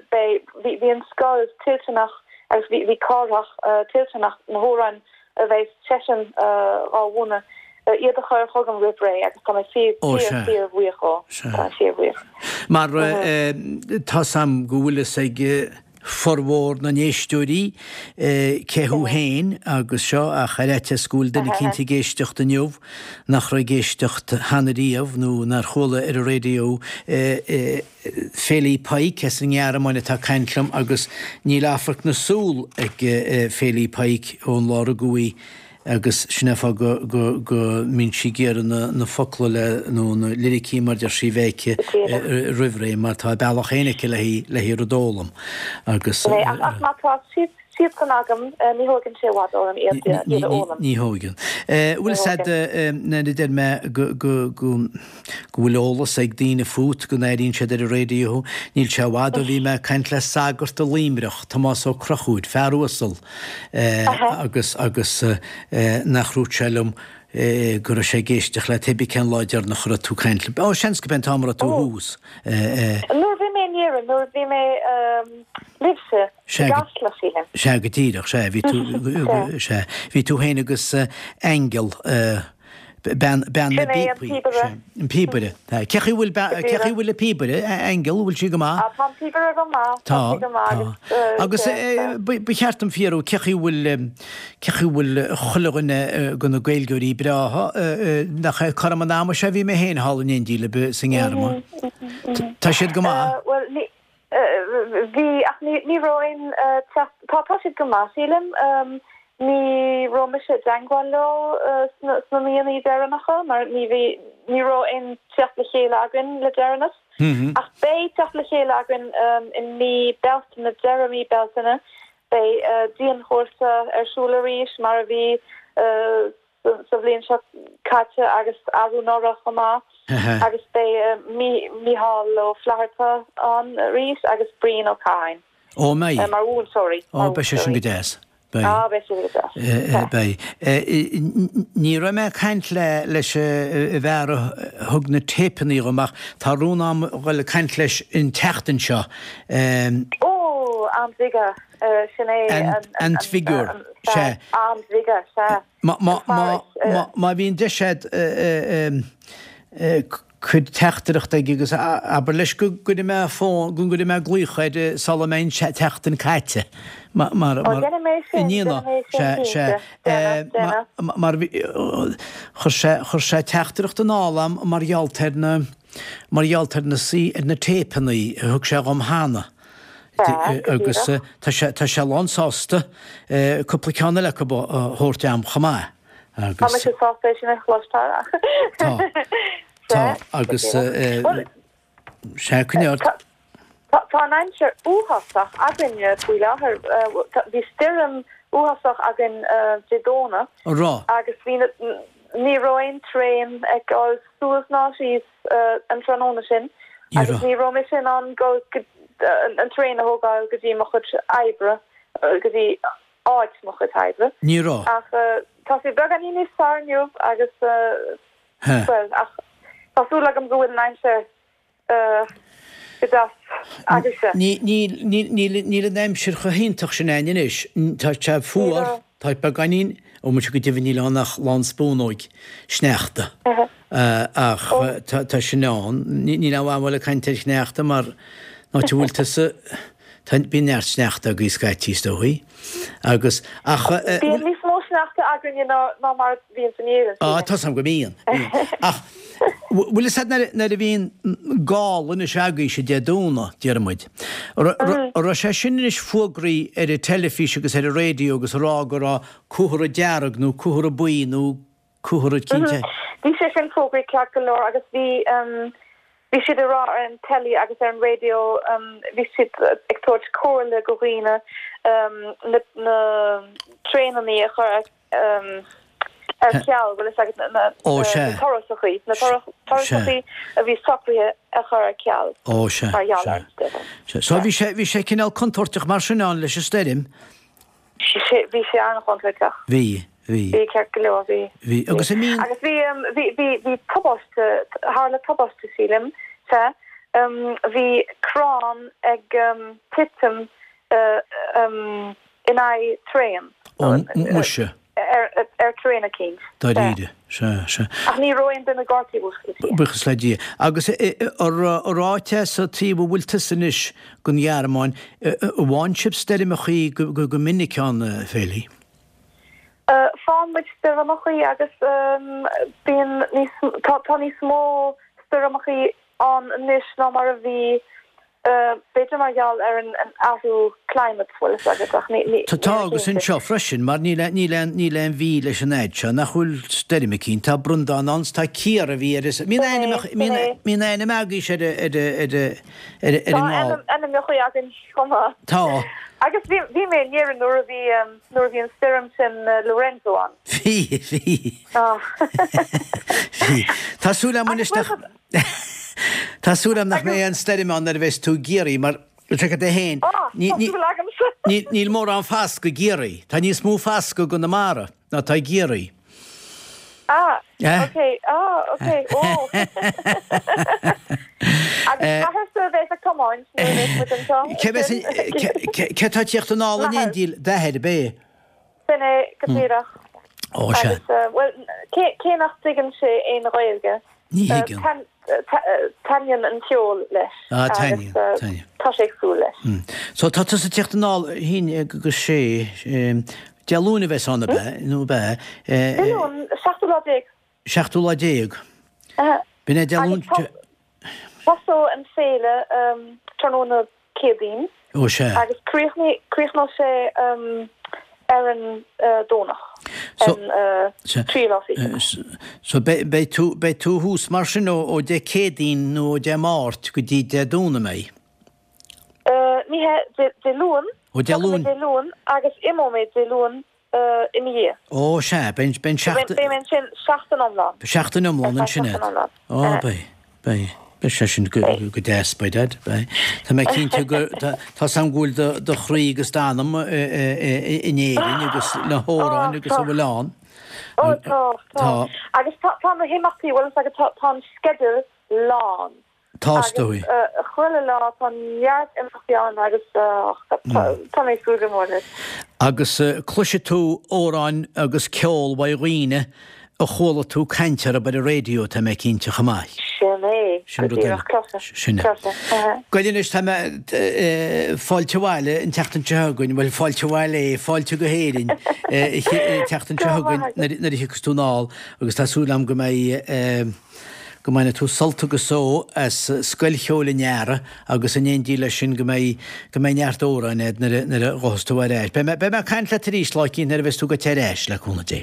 beidh, bhí an scoil toilteanach agus bhí Cárthach toilteanach na hamhráin a bheidh seisean dhá mhúineadh, iad a chur chugam roimh ré agus tá mé fíor, fíor, fíor bhuíoch dhó. Tá mé fíor bhuíoch. Mar tá's a'm go bhfuil fhios ag formhór na n-éisteoirí cé thú féin agus seo ach ar fhaitíos go bhfuil duine eicínt ag éisteacht inniu nach raibh ag éisteacht cheana riamh nó nár chuala ar an raidió Féilí Pike as an nGearmáin atá ag caint liom agus níl amharc na súl ag Féilí Pike ón lá a rugadh í agus sin é an fáth go go go mbíonn sí ag iarraidh na na focla le nó na liricí mar deir sí bheith aici roimh ré mar tá a bealach féin aici le hí le hí rud a fhoghlaim agus. Ach má tá siad siadsan agam ní thóigeann sé i bhfad orm iad iad a fhoghlaim. Ní thóigeann. Bhfuil fhios a'd nuair a deir mé go go go go bhfuil eolas ag daoine fút, go n-airíonn siad ar an raidió thú. Níl sé i bhfad ó bhí mé ag caint le sagart i Luimneach, Tomás Ó Conchúir, fear uasal, agus, agus nach ndúirt sé liom go raibh sé ag éisteacht leat pé bith cén lá deireanach a raibh tú ag caint liom. Ó, seans go b'é an t-am a raibh tú thuas. Nuair a bhí mé in Éirinn, nuair a bhí mé libhse i gCasla, sílim. Sea, go díreach, sea, bhí tú, sea, bhí tú féin agus Aingeal, Bean na bpíopaí. An píobaire. Cé chaoi bhfuil cé chaoi bhfuil an píobaire, Aingeal, bhfuil sí go maith? Tá an píobaire go maith. Tá, tá. Agus ba cheart dom fiafraí cé chaoi bhfuil cé chaoi bhfuil chuile dhuine de na Gaeilgeoirí breátha, nach é cothrom an ama seo a bhí mé féin thall in éindí libh sa nGearmáin. Tá siad go maith? Bhuel, ní Bhí, ach ní raibh aon teacht, tá, tá siad go maith sílim. Ní raibh mise i dteangmháil leo sna míonna deireanacha mar ní bhí, ní raibh aon teacht le chéile againn le deireanas. Ach beidh teacht le chéile againn i mí Bealtaine, deireadh mí Bealtaine, beidh dianchúrsa ar siúl arís mar a bhí sa bhliain seo caite agus arú anuraidh chomh maith agus beidh Mícheál Ó Flatharta ann arís agus Brian Ó Catháin Ó mbeidh? mar mhúinteoirí. Ó beidh sé sin go deas. Beidh. Á beidh sé go deas. Beidh. Ní raibh mé ag caint le leis an bhfear a thug na téipeanna dhom ach tá rún a'm dhul ag caint leis an tseachtain seo. Ó, an Bhige. Sin é an tFigiúr. Sea. An Bhige, sea. Má bhíonn deis a'd cuir teachtaireacht aige agus abair leis go gcuirfidh mé fón, go gcuirfidh mé glaoch air sula mbeidh an tseachtain caite. Ó, déanfaidh mé sin, déanfaidh mé sin cinnte. Déanfaidh, déanfaidh. Mar chuir sé, chuir sé teachtaireacht anall a'm mar gheall ar na, mar gheall ar na, ar na téipeanna a thug sé dhom cheana. Agus tá sé, tá sé lán sásta cúpla ceann eile acu a thabhairt a'm chomh maith. Agus. Tá mise sásta é sin a chloisteáil. Tá. Tá. Agus sea, coinnigh ort. Tá an aimsir uafásach againne faoi láthair. Bhí stoirm uafásach againn Dé Domhnaigh. An raibh? Agus bhí na, ní raibh aon traein ag dul suas ná síos an tráthnóna sin agus ní raibh mise in ann dul go, an traein a thógáil go dtí mo chuid oibre, go dtí áit mo chuid oibre. Ní raibh. Ach tá sé beagáinín níos fearr inniu agus, bhuel, ach tá súil agam go bhfuil an aimsir go deas agaibhse. Níl an aimsir chomh hiontach sin againn anois. Tá sé fuar, tá beagáinín, ó muise go deimhin níl ann ach lán spúnóig sneachta. Ach tá sin ann. Níl aon mhaith ag caint ar shneachta mar an áit a bhfuil tusa, bíonn neart sneachta agaibh scaití is dóichí. Agus, ach. Bíonn níos mó sneachta againne ná mar a bhíonn in Éirinn, sílim. Á, tá's agam go mbíonn, bíonn. Ach, bhfuil fhios a'd nuair a bhíonn gála anois agaibhse Dé Domhnaigh, déarfaidh muid, an raibh sé sin anois fógraí ar an teilifís agus ar an raidió agus a rá go raibh comhartha dearg nó comhartha buí nó comhartha cinnte. Bhí sé sin fógraí ceart go leor agus bhí bhí siad ag rá ar an teilí agus ar an raidió bhí siad ag tabhairt comhairle go dhaoine na na traenannaí a chur. Ar ceal, bhfuil fhios agat, na turasachaí, na turasachaí a bhí socraithe a chur ar ceal mar gheall ar an stoirm. So bhí sé, bhí sé cineál contúirteach mar sin ann leis an stoirm? Bhí sé an-chontúirteach. Bhí, bhí. Bhí, ceart go leor, bhí. Bhí, agus an mbíonn. Agus bhí, bhí, bhí, bhí tubaiste, tharla tubaiste sílim, sea, bhí crann ag titim in aghaidh traein. Ó, muise. Ar traein eicínt. Dáiríre. Sea, sea. Ach ní raibh aon duine gortaithe, buíochas le Dia. Buíochas le Dia. Agus ar áit é sa taobh a bhfuil tusa anois den Ghearmáin, an bhfaigheann sibh stoirmeachaí go minic ann, a Féilí? Faigheann muid stoirmeachaí agus bíonn níos, tá níos mó stoirmeachaí ann anois ná mar a bhí B'fhéidir mar gheall ar an athrú climate, bhfuil fhios agat, ach ní, ní, Tá agus anseo freisin, mar níl aon, níl aon, níl aon mhí leis an fhaid seo nach bhfuil stoirm eicínt. Tá Breandán ann 's tá Ciara a bhí ar an, mbíonn ainm, mbíonn, mbíonn ainm agaibhse ar a, ar a, ar a, ar a, ar an nGall. Tá ainmneacha againn chomh maith. Tá. Agus bhí, bhí mé in Éirinn nuair a bhí, nuair a bhí an stoirm sin Lorenzo ann. Bhí, bhí. Bhí. Tá súil agam anois nach. Tá súil agam nach mbeidh aon stoirm ann nuair a bheas tú i gCiarraí mar, feicfidh tú féin, níl mórán fascadh i gCiarraí. Tá níos mó fascadh i gConamara ná atá i gCiarraí. Ah, ok, ah, ok, ó. Agus m'athairse a bheas ag tiomáint nuair a bheas muid anseo. Cé atá ag tíocht anall in éindí d'athair, ab é? Sin é go díreach. Ó, sea. Agus, bhuel, cé nach dtuigeann sé aon Ghaeilge, Ní thuigeann. taitníonn an ceol leis. Ah, taitníonn, taitníonn. Tá sé ag súil leis. So, tá tusa ag tíocht anall, a haon agus sé, Dé Luain a bheas ann, ab ea? Nó ab ea? Dé Luain, seachtú lá déag. Seachtú lá déag. B'in é Dé Luain. Tosóidh an féile tráthnóna Céadaoin. Ó sea. Agus críochnóidh sé ar an Domhnach, an tríú lá fichead. So beidh tú, beidh tú thuas mar sin ó Dé Céadaoin nó ó Dé Máirt go dtí Dé Domhnaigh, an mbeidh? Ní hea, Dé Luain. Ó Dé Luain. Tiocfaidh mé Dé Luain agus imeoidh mé Dé Luain ina dhiaidh. Ó, sea, beidh an seachtain. Beidh mé ansin seachtain iomlán. Seachtain iomlán ansin agat. Ó, beidh, beidh. Beidh sé sin go deas, beidh, Dad, beidh. Tá mé cinnte go, tá 's agam go bhfuil do chroí agus d'anam in Éirinn agus na hamhráin agus a bhfuil ann. Ó, tá, tá. Agus tá na himeachtaí, bhfuil fhios agat, tá an sceideal lán. Tá, is dóigh. Agus chuile lá tá neart imeachtaí ann agus tá mé ag súil go mór leis. Agus cloisfidh tú amhráin agus ceol uaidh dhaoine a chuala tú caint orthu ar an raidió, tá mé cinnte, chomh maith. Sin é, Sin go rud eile. díreach, cloisfidh, Sin é. cloisfidh. Bhuel anois, tá mé, fáilte abhaile an tseachtain seo chugainn, bhuel fáilte abhaile é, fáilte go hÉirinn an tseachtain seo chugainn nuair a thiocfas tú anall agus tá súil agam go mbeidh, go mbainfidh tú sult agus só as Scoil Cheoil an Earraigh agus in éindí leis sin go mbeidh, go mbeidh neart amhráin agat nuair a, nuair a ghabhfas tú ar ais. Beidh mé, beidh mé ag caint leat arís lá eicínt nuair a bheas tú gaibhte ar ais, le cúnamh Dé.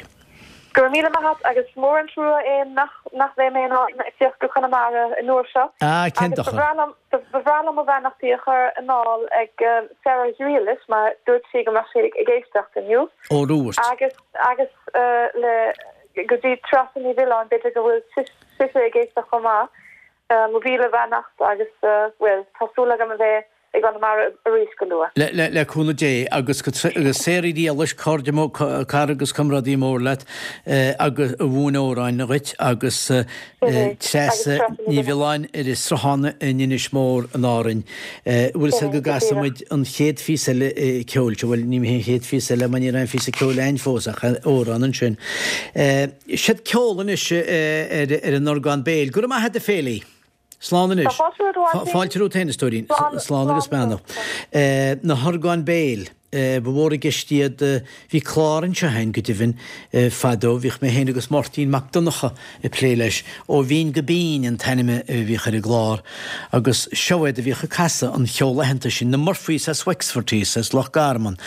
Go raibh míle maith agat agus is mór an trua é nach, nach mbeidh mé in ann tíocht go Conamara an uair seo Ah, cén agus ba dochar. bhreá liom, ba bhreá liom mo bheannachtaí a chur anall ag Sarah Ghriallais mar dúirt sí go mbeadh sí ag éisteacht inniu. Ó, dúirt. Agus, agus le. Go dtí Treasa Ní Mhiolláin, b'fhéidir go bhfuil sise ag éisteacht chomh maith. Mo mhíle beannacht agus, bhuel, tá súil agam a bheith i gConamara arís go luath. Le cúnamh Dé agus go Sarah Ghriallais, cairde mór, cara agus comrádaí mór leat agus a mhúin amhráin dhuit agus Treasa Ní Mhiolláin ar an Sruthán in Inis Mór in Árainn. Bhfuil fhios agat go gcasfaidh muid an chéad phíosa eile ceoil seo, bhuel ní hé an chéad phíosa eile mar ní raibh aon phíosa ceoil a'inn fós ach amhrán ansin. Siad ceol anois ar an orgán béil. Go raibh maith agat a Féilí! Slán anois. Tá fáilte romhat a Mháirtín. Fáilte romhat féin a stóirín. Slán agus beannacht. Na horgáin béil. Ba mhór i gceist iad. Bhí clár anseo a'inn, go deimhin, fadó. Bhíodh mé féin agus Máirtín Mac Donncha ag plé leis. Ó Bhinn go Binn an t-ainm a bhíodh ar an gclár. Agus seo iad a bhíodh ag casadh an cheoil aitheanta sin, na Murphys as Wexford thíos, as Loch Garman.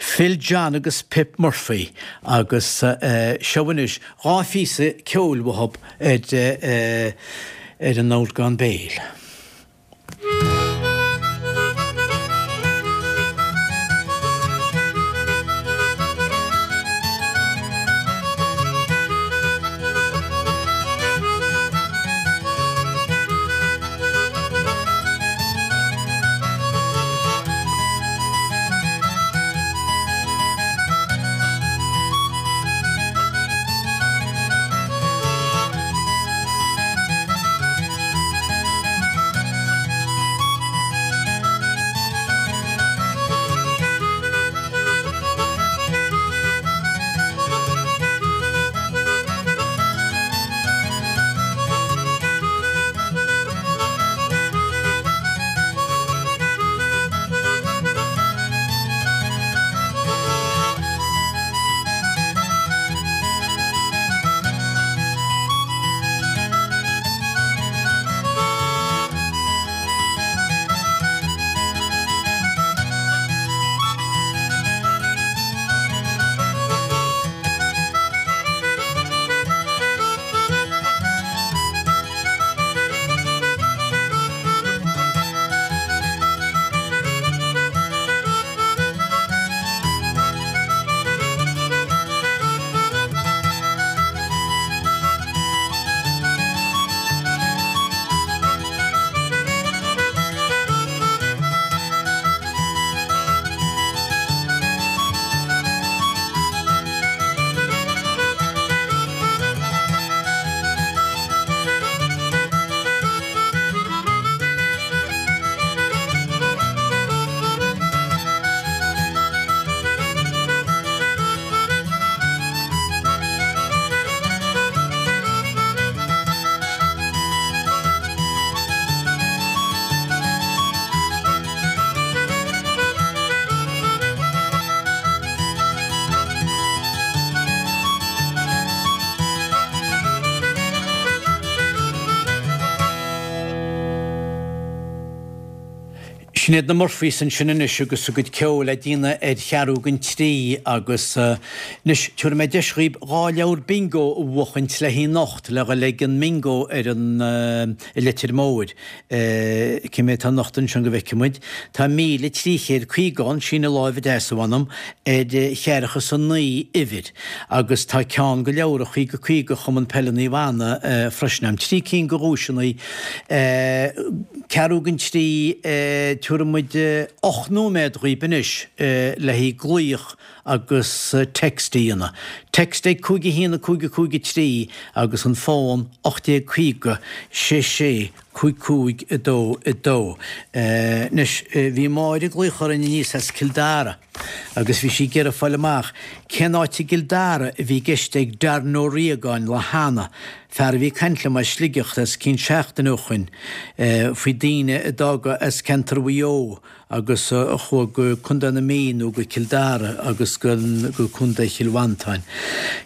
Phil John agus Pip Murphy. Agus seo anois dha phíosa ceoil uathub ar ar an orgán béil. Sin iad na Murphys ansin anois agus a gcuid ceoil á déanamh ar cheathrú don trí agus anois tabharfaidh mé deis dhaoib dhá leabhar bingo a bhuachaint le haghaidh anocht le dhul ag an mbingo ar an i Leitir Móir. Cé mhéad atá anocht ansin go bhfeicfidh muid. Tá 1,350 ann, síneadh láimhe deas a mh'anam, ar cheathracha is a naoi uimhir agus tá ceann de leabhra 50 50 Chumann Peile Naomh Anna freisin a'm. Trí cinn de dhuaiseanna. Ceathrú don trí, tabharfaidh muid 8 nóiméad dhaoib anois le haghaidh glaoch agus text a dhéanamh. Text ag 5 1 5 5 3 agus an fón 1850 6 6 5 5 2 2. Anois, bhí Máire ag glaoch orainn aníos as Cill Dara agus bhí sí ag iarraidh fáil amach cén áit i gCill Dara a bhí i gceist ag Darren Ó Riagáin lá cheana, fear a bhí ag caint liom as Sligeach os cionn seachtaine ó shoin, faoi daoine a d'fhága as ceantar Mhaigh Eo agus a chuaigh go Contae na Mí nó go Cill Dara agus go Contae Chill Mhantáin.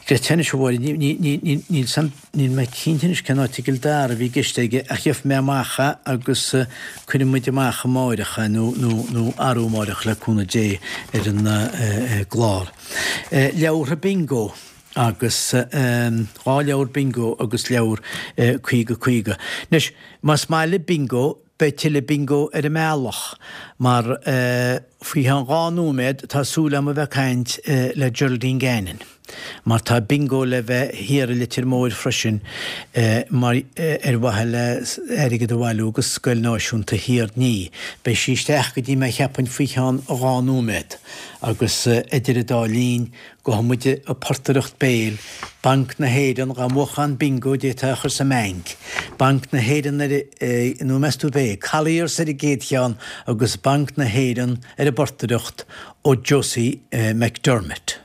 Greta anois a Mháire, níl san, níl mé cinnte anois cén áit i gCill Dara a bhí i gceist aige ach gheobhaidh mé amach é agus cuirfidh muid amach amáireach é nó, nó, nó arú amáireach le cúnamh Dé ar an gclár. Leabhartha Bingo agus dhá leabhar Bingo agus leabhar 50 50. Anois, más maith libh Bingo, Beidh tuilleadh bingo ar an mbealach, mar faoi cheann dhá nóiméad tá súil agam a bheith ag caint le Geraldine Gannon, mar tá bingo le bheith thiar i Leitir Móir freisin mar ar mhaithe le airgead a bhailiú go Scoil Náisiúnta Thír an Fhia. Beidh sí isteach go dtí mé cheapfainn faoi cheann dhá nóiméad agus idir an dá linn Gabhfaidh muid ag portaireacht béil, Banc na hÉireann, dhá mbuafá an bingo d'fhéadfá é a chur sa mbanc. Banc na hÉireann ar, nó meas tú ab é, Colliers ar an gcéad cheann agus Banc na hÉireann ar an bportaireacht ó Josie McDermott.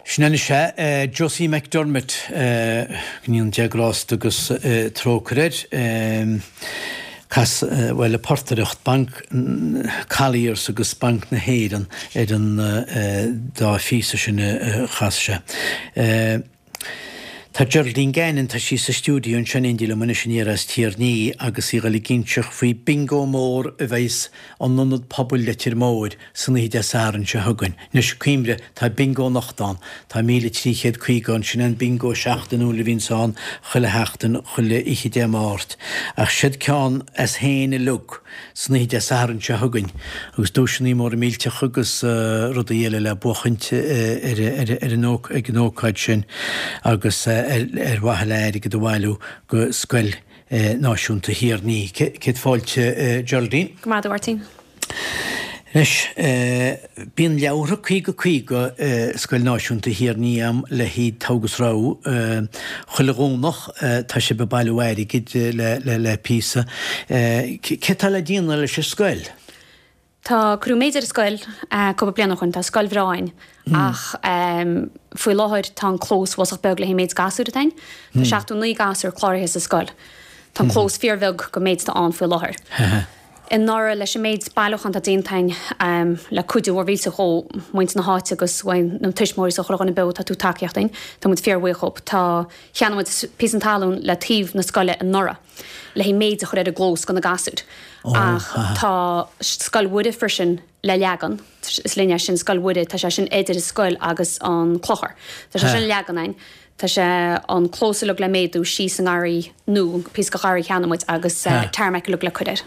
Sin anois é, Josie McDermott, go ndéana Dia grásta agus trócaire air. Cas, bhuel, ag portaireacht Banc Colliers agus Banc na hÉireann ar an dá phíosa sin a chas sé. Tá Geraldine Gannon, tá sí sa stiúideo anseo in éindí liom anois aniar as Tír an Fhia agus í ag dul ag inseacht faoi bingo mór a bheas in Ionad Pobail Leitir Móir san oíche Dé Sathairn seo chugainn. Anois, cuimhnigh, tá bingo anocht ann. Tá 1,350 ann. Sin é an bingo seachtainiúil a bhíonns ann chuile sheachtain, chuile oíche Dé Máirt. Ach siod ceann as féin uilig. san oíche Dé Sathairn seo chugainn agus duaiseanna móra millteacha agus rudaí eile le buachaint ar an ag an ócáid sin agus ar mhaithe le airgead a bhailiú go Scoil. Náisiúnta Thír an Fhia. Céad fáilte Geraldine. Go raibh maith agat a Mháirtín. Anois, bíonn leabhartha 50 50 i Scoil Náisiúnta Thír an Fhia am le haghaidh togha agus rogha. Chuile Dhomhnach tá sibh ag bailiú airgid le píosa. Cé tá le déanamh leis an scoil? Tá, cuireadh méid ar an scoil cúpla bliain ó shoin, tá scoil bhreá a'inn ach faoi láthair tá an clós bhfosach beag le haghaidh an méid gasúir atá a'inn. Tá 79 gasúr cláraithe sa scoil. Tá an clós fíor bheag go méid atá ann faoi láthair. Anuraidh leis an méid bailiúchán atá déanta a'inn le cuidiú mhór mhillteach ó mhuintir na háite agus uaidh na tuismitheoirí is ó chuile dhuine beo atá ag tabhairt tacaíocht a'inn, tá muid fíor bhuíoch dhób. Tá, cheannaigh muid píosa talún le taobh na scoile anuraidh. le haghaidh méid a chur ar an gclós go na gasúir. Ach tá Scoil Mhuire freisin le leagan, is linne é sin, Scoil Mhuire, tá sé sin idir an scoil agus an clochar. Tá sé sin le leagan a'inn. Tá sé an clós uilig le méadú síos sa ngarraí nó píosa de gharraí a cheannaigh muid agus tarmac uilig le cur air.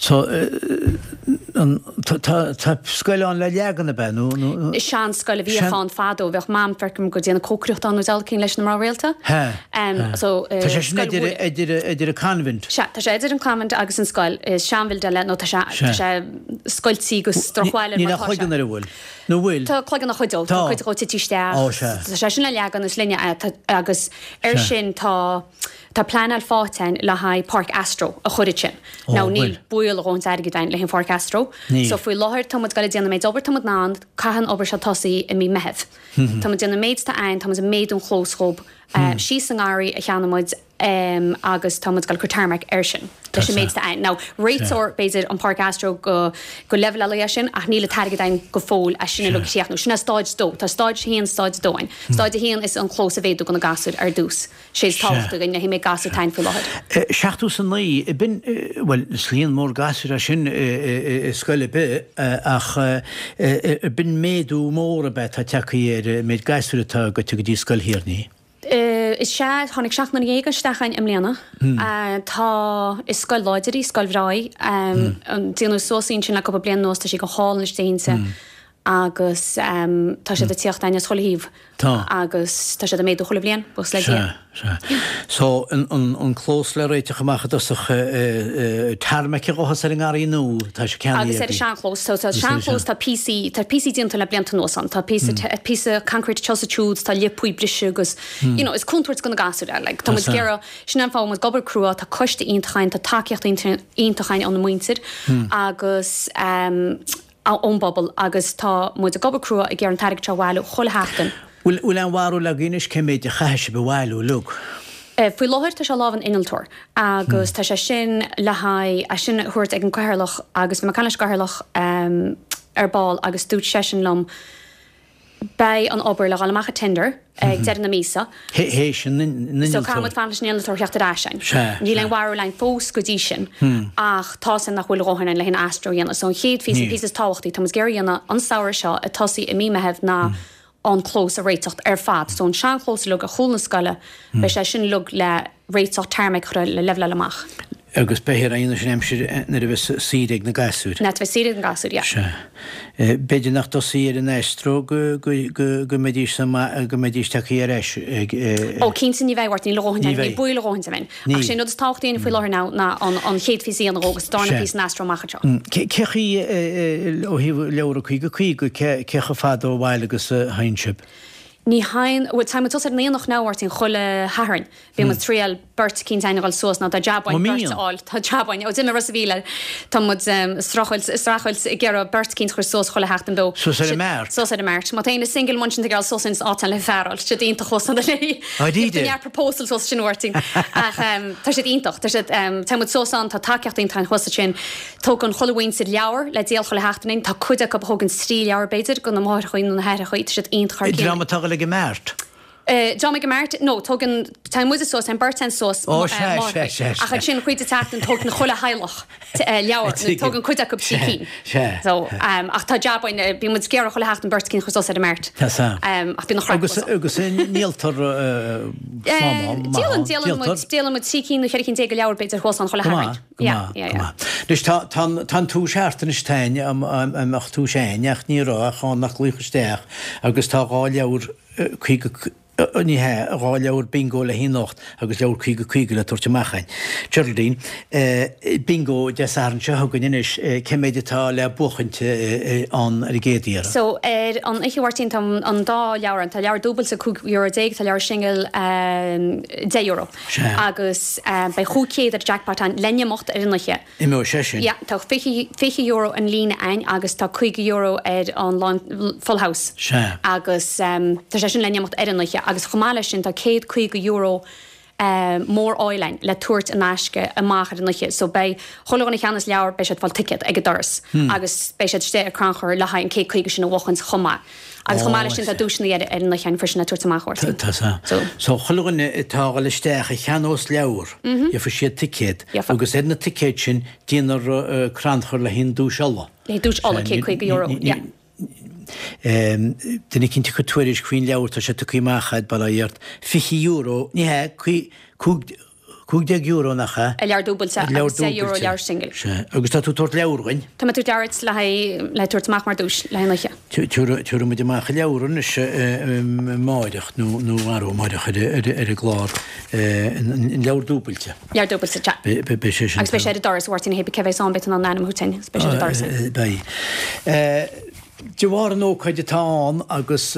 Tá tá scoil ann le leagan ab ea nó? Sean scoil a bhíodh ann fadó, bheadh mam feicim ag déanamh cócaireachta ann nó deabhal cinn leis na mná rialta. Hea. So Tá sé sin idir idir idir an convent. Sea, tá sé idir an convent agus an scoil. Is seanbhildeáil é nó tá sé tá sé scoiltí agus drochbhail air mar tá sé. Níl ach cloigeann air an bhfuil? Nó bhfuil? Tá cloigeann a chuid dó, tá cuid dhó tite isteach. Ó sea. Tá sé sin le leagan is linne agus ar sin tá Tá pleanáil faighte a'inn le haghaidh páirc astro a chur ansin. Now níl baol a dhóthaint airgid a'inn le haghaidh an pháirc astro. So faoi láthair tá muid ag goil ag déanamh an méid obair tá muid in ann, caithfidh an obair seo tosaí i mí Meitheamh. Tá muid ag déanamh an méid atá a'inn, tá muid ag méadú an chlós dhób síos sa ngarraí a cheannaigh muid agus tá muid ag goil ag cur tarmac air sin leis an méid atá a'inn. Now réiteoir b'fhéidir an páirc astro go go leibhéal é sin ach níl an t-airgead a'inn go fóill as sin uilig a chríochnú. Sin é stáid 2. Tá stáid 1, stáid 2 a'inn. Stáid 1 is an clós a mhéadú go na gasúir ar dtús. Sé is tábhachtaí againn le haghaidh an méid gasúr atá a'inn faoi láthair. 79, ab in, bhuel, is líon mór gasúr é sin i scoil ar bith ach ab in méadú mór ab ea atá tagtha ar an méid gasúr atá goite go dtí Scoil Thír an Fhia? Is ea, tháinig 79 isteach a'inn i mbliana. Tá, is scoil láidir í, scoil bhreá í. Déanadh suas í ansin le cúpla bliain anuas, tá sí go hálainn istigh inti. agus tá siad ag tíocht a'inn as chuile thaobh. Tá. Agus tá siad ag méadú chuile bhliain, buíochas le Dia. Sea, sea. So, an clós le réiteach amach i dtosach, tarmac a ghabhfas ar an ngarraí nua, tá sé ceannaithe Agus ar an seanchlós, so tá seanchlós, tá píosaí, tá píosaí déanta le blianta anuas ann, tá píosa, píosa concrete anseo is ansiúd, tá liopaí briste agus, you know, is contúirt go na gasúir é, like, tá muid ag iarraidh, sin an fáth a bhfuil muid ag obair crua, tá coiste iontach a'inn, tá tacaíocht iontach a'inn óna muintir agus, ón bpobal agus tá muid ag obair crua ag iarraidh an t-airgead seo a bhailiú chuile sheachtain. Bhfuil aon bharúil agaibh anois cé méid a chaithfidh sibh a bhailiú uilig? Faoi láthair tá sé i lámh an innealtóir agus tá sé sin le haghaidh é sin a thabhairt ag an gCathaoirleach agus bhí mé ag caint leis an gCathaoirleach ar ball agus dúirt seisean liom Beidh an obair le dhul amach ag tender ag deireadh na míosa. Théis an innealtóir. So caithfidh muid fanacht leis an innealtóir theacht ar ais a'inn. Sea. Níl aon bharúil a'inn fós go dtí sin ach tá 's a'inn nach bhfuil a dhóthain a'inn le haghaidh an astro a dhéanamh. So an chéad phíosa, an píosa is tábhachtaí, tá muid ag iarraidh a dhéanamh an samhradh seo ag tosaí i mí Meitheamh ná an clós a réiteacht ar fad. So an seanchlós uilig ar chúl na scoile, beidh sé sin uilig le réiteach, tarmac a chur le leibhleáil amach. Agus beifear á dhéanamh sin aimsir nuair a bheas saoire ag na gasúir. Nuair a bheas saoire ag na gasúir, yeah. Sea. B'fhéidir nach dtosaí ar an astro go go mbeidís go mbeidís tagtha ar ais ag. Ó cinnte ní bheidh, a Mháirtín, níl a dhóthain againn, níl baol a dhóthain againn. Ach sé an rud is tábhachtaí againn faoi láthair now ná an chéad phíosa a dhéanamh agus an darna píosa an astro amach anseo. Cé chaoi ó thaobh leabhar 50 50 cé chomh fada ó bhaile agus a théann sibh? Ní théann, bhuel téann muid suas ar an aonach now, a Mháirtín, chuile Shatharn. Bíonn muid triail beirt eicínt a'inn a dhul suas now tá jab a'inn beirt a fháil, tá jab a'inn, ó d'imigh Ros a' Mhíl, tá muid streachailt, streachailt ag iarraidh beirt eicínt a chur suas chuile sheachtain beo. Suas ar an mart? Suas ar an mart. Má tá éinne single amuigh ansin ag iarraidh suas ins áit le fear a fháil, tá siad iontach thuas ann léi. Dáiríre? Neart proposals thuas ansin a Mháirtín. Ach tá siad iontach, tá siad, téann muid suas ann, tá tacaíocht iontach a'inn thuas ansin. Tógann chuile mhuintir leabhar le díol chuile sheachtain a'inn. Tá cuid acu a thógann trí leabhar b'fhéidir, go na máithreachaí nó na haithreachaí. Tá siad iontach thar cionn. Dream atá ag dul ag an mart? Dream ag an mart? No, tógann, téann muide suas, téann beirt a'inn suas, Ó, sea, sea, sea, sea. Ach ansin chuid de tseachtain tógann chuile theaghlach leabhar, nó tógann cuid acu trí cinn. Sea, sea. So, ach tá jab a'inn, bíonn muid ag iarraidh chuile sheachtain beirt eicínt a chur suas ar an mart. Tá sea. Ach bíonn an chraic Agus, agus ndíoltar slán maith ann? Díolann, díolann muid, díolann muid 13 cinn nó 14 cinn de leabhair b'fhéidir thuas ann chuile Shatharn. Go maith, go maith. Anois tá, tá an, tá an tús thart anois táin, an mbeadh tús a'inn ach ní raibh ach ann nach glaoch isteach agus tá dhá leabhar 50. Ní hea, 2 leabhar bingo le haghaidh anocht agus leabhar 50 50 le tabhairt amach againn. Geraldine, Bingo Dé Sathairn seo chugainn anois, cé méid atá le buachaint ann ar an gcéad iarraidh? So, ar an oíche a Mháirtín, tá an dá leabhar ann. Tá leabhar dúbailte €15, tá leabhar singil €10. Sea. Agus beidh 500 ar jackpot ann le n-imeacht ar an oíche. Imeoidh sé sin. Yeah, tá €20 an líne ann agus tá €50 ar an lán, full house. Sea. Agus tá sé sin le n-imeacht ar an oíche agus chomh maith leis sin tá €150 mór-áil ann le tabhairt in aisce amach ar an oíche. So beidh chuile dhuine a cheannas leabhar beidh siad ag fáil ticéad ag an doras agus beidh siad istigh ar crannchur le haghaidh an 150 sin a bhuachaint chomh maith. Agus chomh maith leis sin tá duaiseanna ar an oíche ann freisin le tabhairt amach ort. Tá sa. So chuile dhuine atá a dhul isteach a cheannós leabhar, gheobhaidh siad ticéad agus ar na ticéid sin déanfar crannchur le haghaidh an duais ola. Le haghaidh duais ola, €150, yeah. Duine eicínt ag cur tuairisc faoin leabhar, tá sé tugtha amach a'd, bail ó Dhia ort, €20, ní hea, €15 nach ea? Ar leabhar dúbailte agus €10 leabhar singil. Sea. Agus tá tú ag tabhairt leabhar dhuinn? Tá mé ag tabhairt leabhar duit le haghaidh, le tabhairt amach mar duais le haghaidh an oíche. Tabharfaidh muid amach an leabhar anois amáireach nó nó arú amáireach ar ar an gclár, an leabhar dúbailte. Leabhar dúbailte, sea. Beidh sé sin. Agus beidh sé ar an doras, a Mháirtín, hé cé bheas ann beidh tú in ann ainm a thabhairt duinn agus beidh sé ar an doras. Beidh. De bharr an ócáid atá ann agus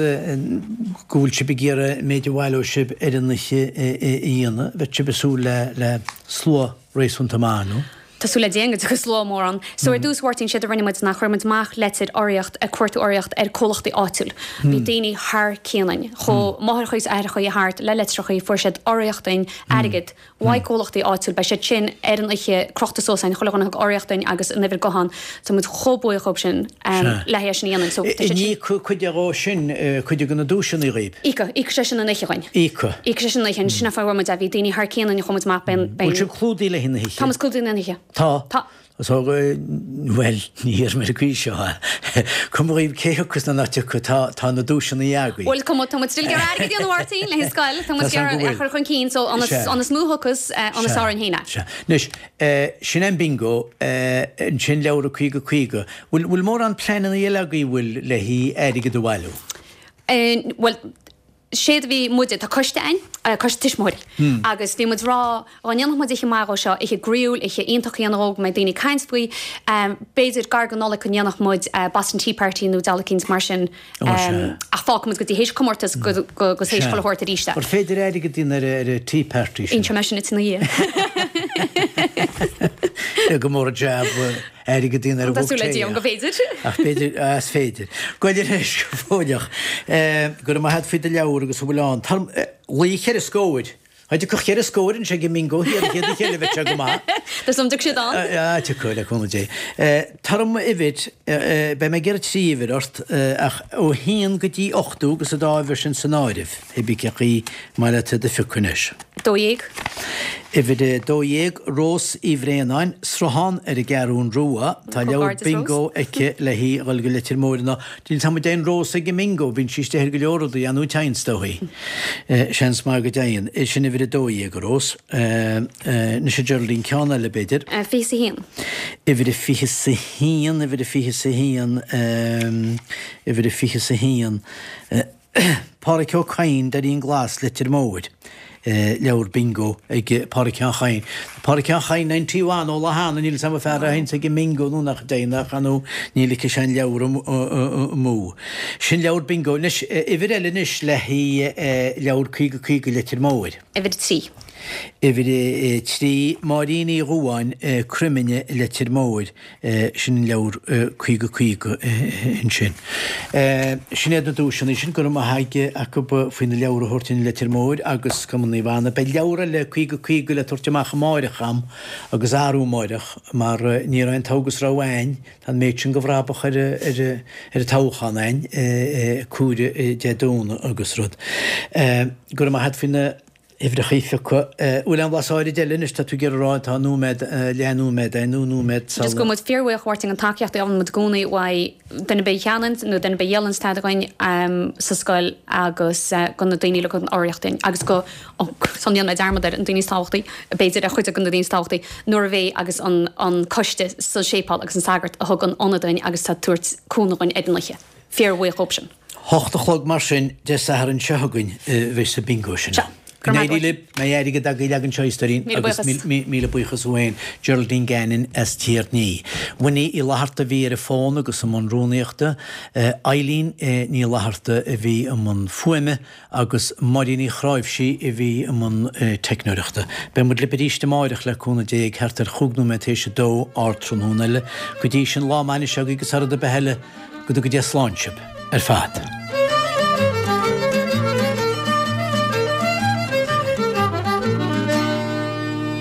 go bhfuil sibh ag iarraidh an méid a bhaileoidh sibh ar an oíche a dhéanamh, bheadh sibh ag súil le slua réasúnta maith, nó? Tá súil le Dia go dtiocfaidh slua mór ann. So ar dtús, a Mháirtín, séard a rinne muid ná chuir muid amach leitir urraíocht, ag cuartú urraíocht ar comhlachtaí áitiúil. Bhí daoine thar cionn againn. Chuaigh máithreachaí is aithreachaí thart le litreachaí, fuair siad urraíocht dúinn, airgead, Uaidh comhlachtaí áitiúil, beidh siad sin ar an oíche crochta suas againn, chuile dhuine a thug urraíocht dúinn agus an uimhir gutháin, tá muid chomh buíoch dhóibh sin le haghaidh é sin a dhéanamh. So tá siad sin. An íocfaidh cuid dhó sin, cuid de na duaiseanna dhaoib? Íocfaidh, íocfaidh sé sin an oíche dhuinn. Íocfaidh. Íocfaidh sé sin an oíche, sin an fáth a bhfuair muid é, bhí daoine thar cionn againn a chuaigh muid amach, beidh an, beidh an. Bhfuil sibh clúdaithe le haghaidh na hoíche? Tá muid clúdaithe le haghaidh na hoíche. Tá? Tá. So, bhuel, ní hiarrfaidh mé ar an gcaoi seo. Cuma dhaoibh cé thiocfas nó nach dtiocfaidh, tá, tá na duaiseanna agaibh. Bhuel, cuma, tá muid still ag iarraidh airgead a dhéanamh, a Mháirtín, le haghaidh scoil, tá muid ag iarraidh é a chur chun cinn, so an is, an is mó a thiocfas, an is fearr dúinn féin é. Sea. Anois, sin é an bingo, ansin leabhra 50 50. Bhfuil, bhfuil mórán pleananna eile agaibh, bhfuil, le haghaidh airgead a bhailiú? Bhuel, séard a bhí muide, tá coiste a'inn, coiste tuismitheoirí, agus bhí muid ag rá, dhá ndéanfadh muid oíche maith dhó seo, oíche groíúil, oíche iontach a dhéanamh dhó, go mbeidh daoine ag caint faoi, b'fhéidir gar go Nollaig go ndéanfadh muid Boston Tea Party nó deal eicínt mar sin, ach fágfaidh muid go dtí théis comórtas go go go théis chuile shórt arís é. Ar féidir airgead a dhéanamh ar ar an Tea Party sin? Inseoidh mé sin duit ina dhiaidh. Go mór an jab. Airgead a dhéanamh ar an Tá súil le Dia go bhféidir. Ach b'fhéidir, is féidir. Goil ar ais go fóilleach. Go raibh maith agat faoi do leabhar agus a bhfuil ann. Tá luí cheithre scóir. Dá dtiocfadh cheithre scóir anseo ag an mbingo thiar an chéad oíche eile bheadh sé go maith. Tá súil agam dtiocfaidh siad ann. Ah, tiocfaidh, le cúnamh Dé. Tar orm uimhir, beidh mé ag iarraidh trí uimhir ort, ach ó haon go dtí 80 agus an dá uimhir sin san áireamh, hé bí cé chaoi maith leat iad a phiocadh anois. 12. Uimhir 12, Rós Uí Bhraonáin, Sruthán ar an gCeathrún Rua. Tá leabhar bingo aici le haghaidh a dhul go Leitir Móir ná níl 's a'm an dtéann Rós ag an mbingo, bíonn sí istigh ar go leor rudaí, an dtéann is dóigh. Seans maith go dtéann. Sin uimhir 12, a Rós. Anois a Geraldine, ceann eile b'fhéidir. 21. Uimhir 21, uimhir 21, uimhir 21. Páraic Ó Cadhain, Doirín Glas, Leitir Móir. Leabhar bingo ag Páraic Sheáin Chadhain. Páraic Sheáin Chadhain 91 ó lá cheana, níl 'fhios a'm an fear a théanns ag an mbingo nó nach dtéann ach ar ndóigh ní ligfidh sé an leabhar amú. Sin leabhar bingo. Anois, uimhir eile anois le haghaidh leabhar 50 50 Leitir Móir. Uimhir 3. Uimhir 3, Máirín Uí Dhubháin, Croimine, Leitir Móir. Sin an leabhar 50 50 ansin. Sin iad na duaiseanna sin, go raibh maith acu faoi na leabhair a thabhairt i Leitir Móir agus Cumann Naomh Anna. Beidh leabhar eile 50 50 le tabhairt amach amáireach a'm agus arú amáireach mar ní raibh an togha is raibh a'ainn, tá an méid sin go bhrabach ar an toghchán a'ainn, comhaireamh Dé Domhnaigh agus rud. Go raibh maith a't faoi na. huimhreacha a phiocadh. Bhfuil aon bhlas áirid eile anois, tá tú ag iarraidh a rá, tá nóiméad, leath nóiméad againn nó nóiméad sula. Just go bhfuil muid fíorbhuíoch a Mháirtín an tacaíocht a fhaigheann muid i gcónaí uaidh duine ar bith a cheannaíonn nó duine ar bith a dhíolann tada againn sa scoil agus go na daoine a thugann urraíocht dúinn agus go, ó, sula ndéanfaidh mé dearmad air, an daoine is tábhachtaí, b'fhéidir, ar chuid de na daoine is tábhachtaí, nuair a bhí agus an an coiste sa séipéal agus an sagart a thug an ionad dúinn agus tá ag tabhairt cúnamh dhúinn ar an oíche. Fíorbhuíoch dhóibh sin. Hocht a chlog mar sin Dé Sathairn seo chugainn a bheidh sa bingo sin ann. Go n-éirí libh, mbeidh airgead agaibh leagan seo a stóirín agus míle buíochas uainn Geraldine Gannon as Tír an Fhia. Winnie Uí Fhlatharta a bhí ar an bhfón agus i mbun rúnaíochta, Eileen Ní Fhlatharta a bhí i mbun fuaime agus Máirín Uí Chráimhsí a bhí i mbun teicneoireachta. Beidh muid libh arís amáireach le cúnamh Dé ag thart ar chúig nóiméad théis a dó, ardtráthnóna eile. Go dtí sin, lá maith anois agaibh agus thar rud ar bith eile, go dtuga Dia slán sibh ar fad.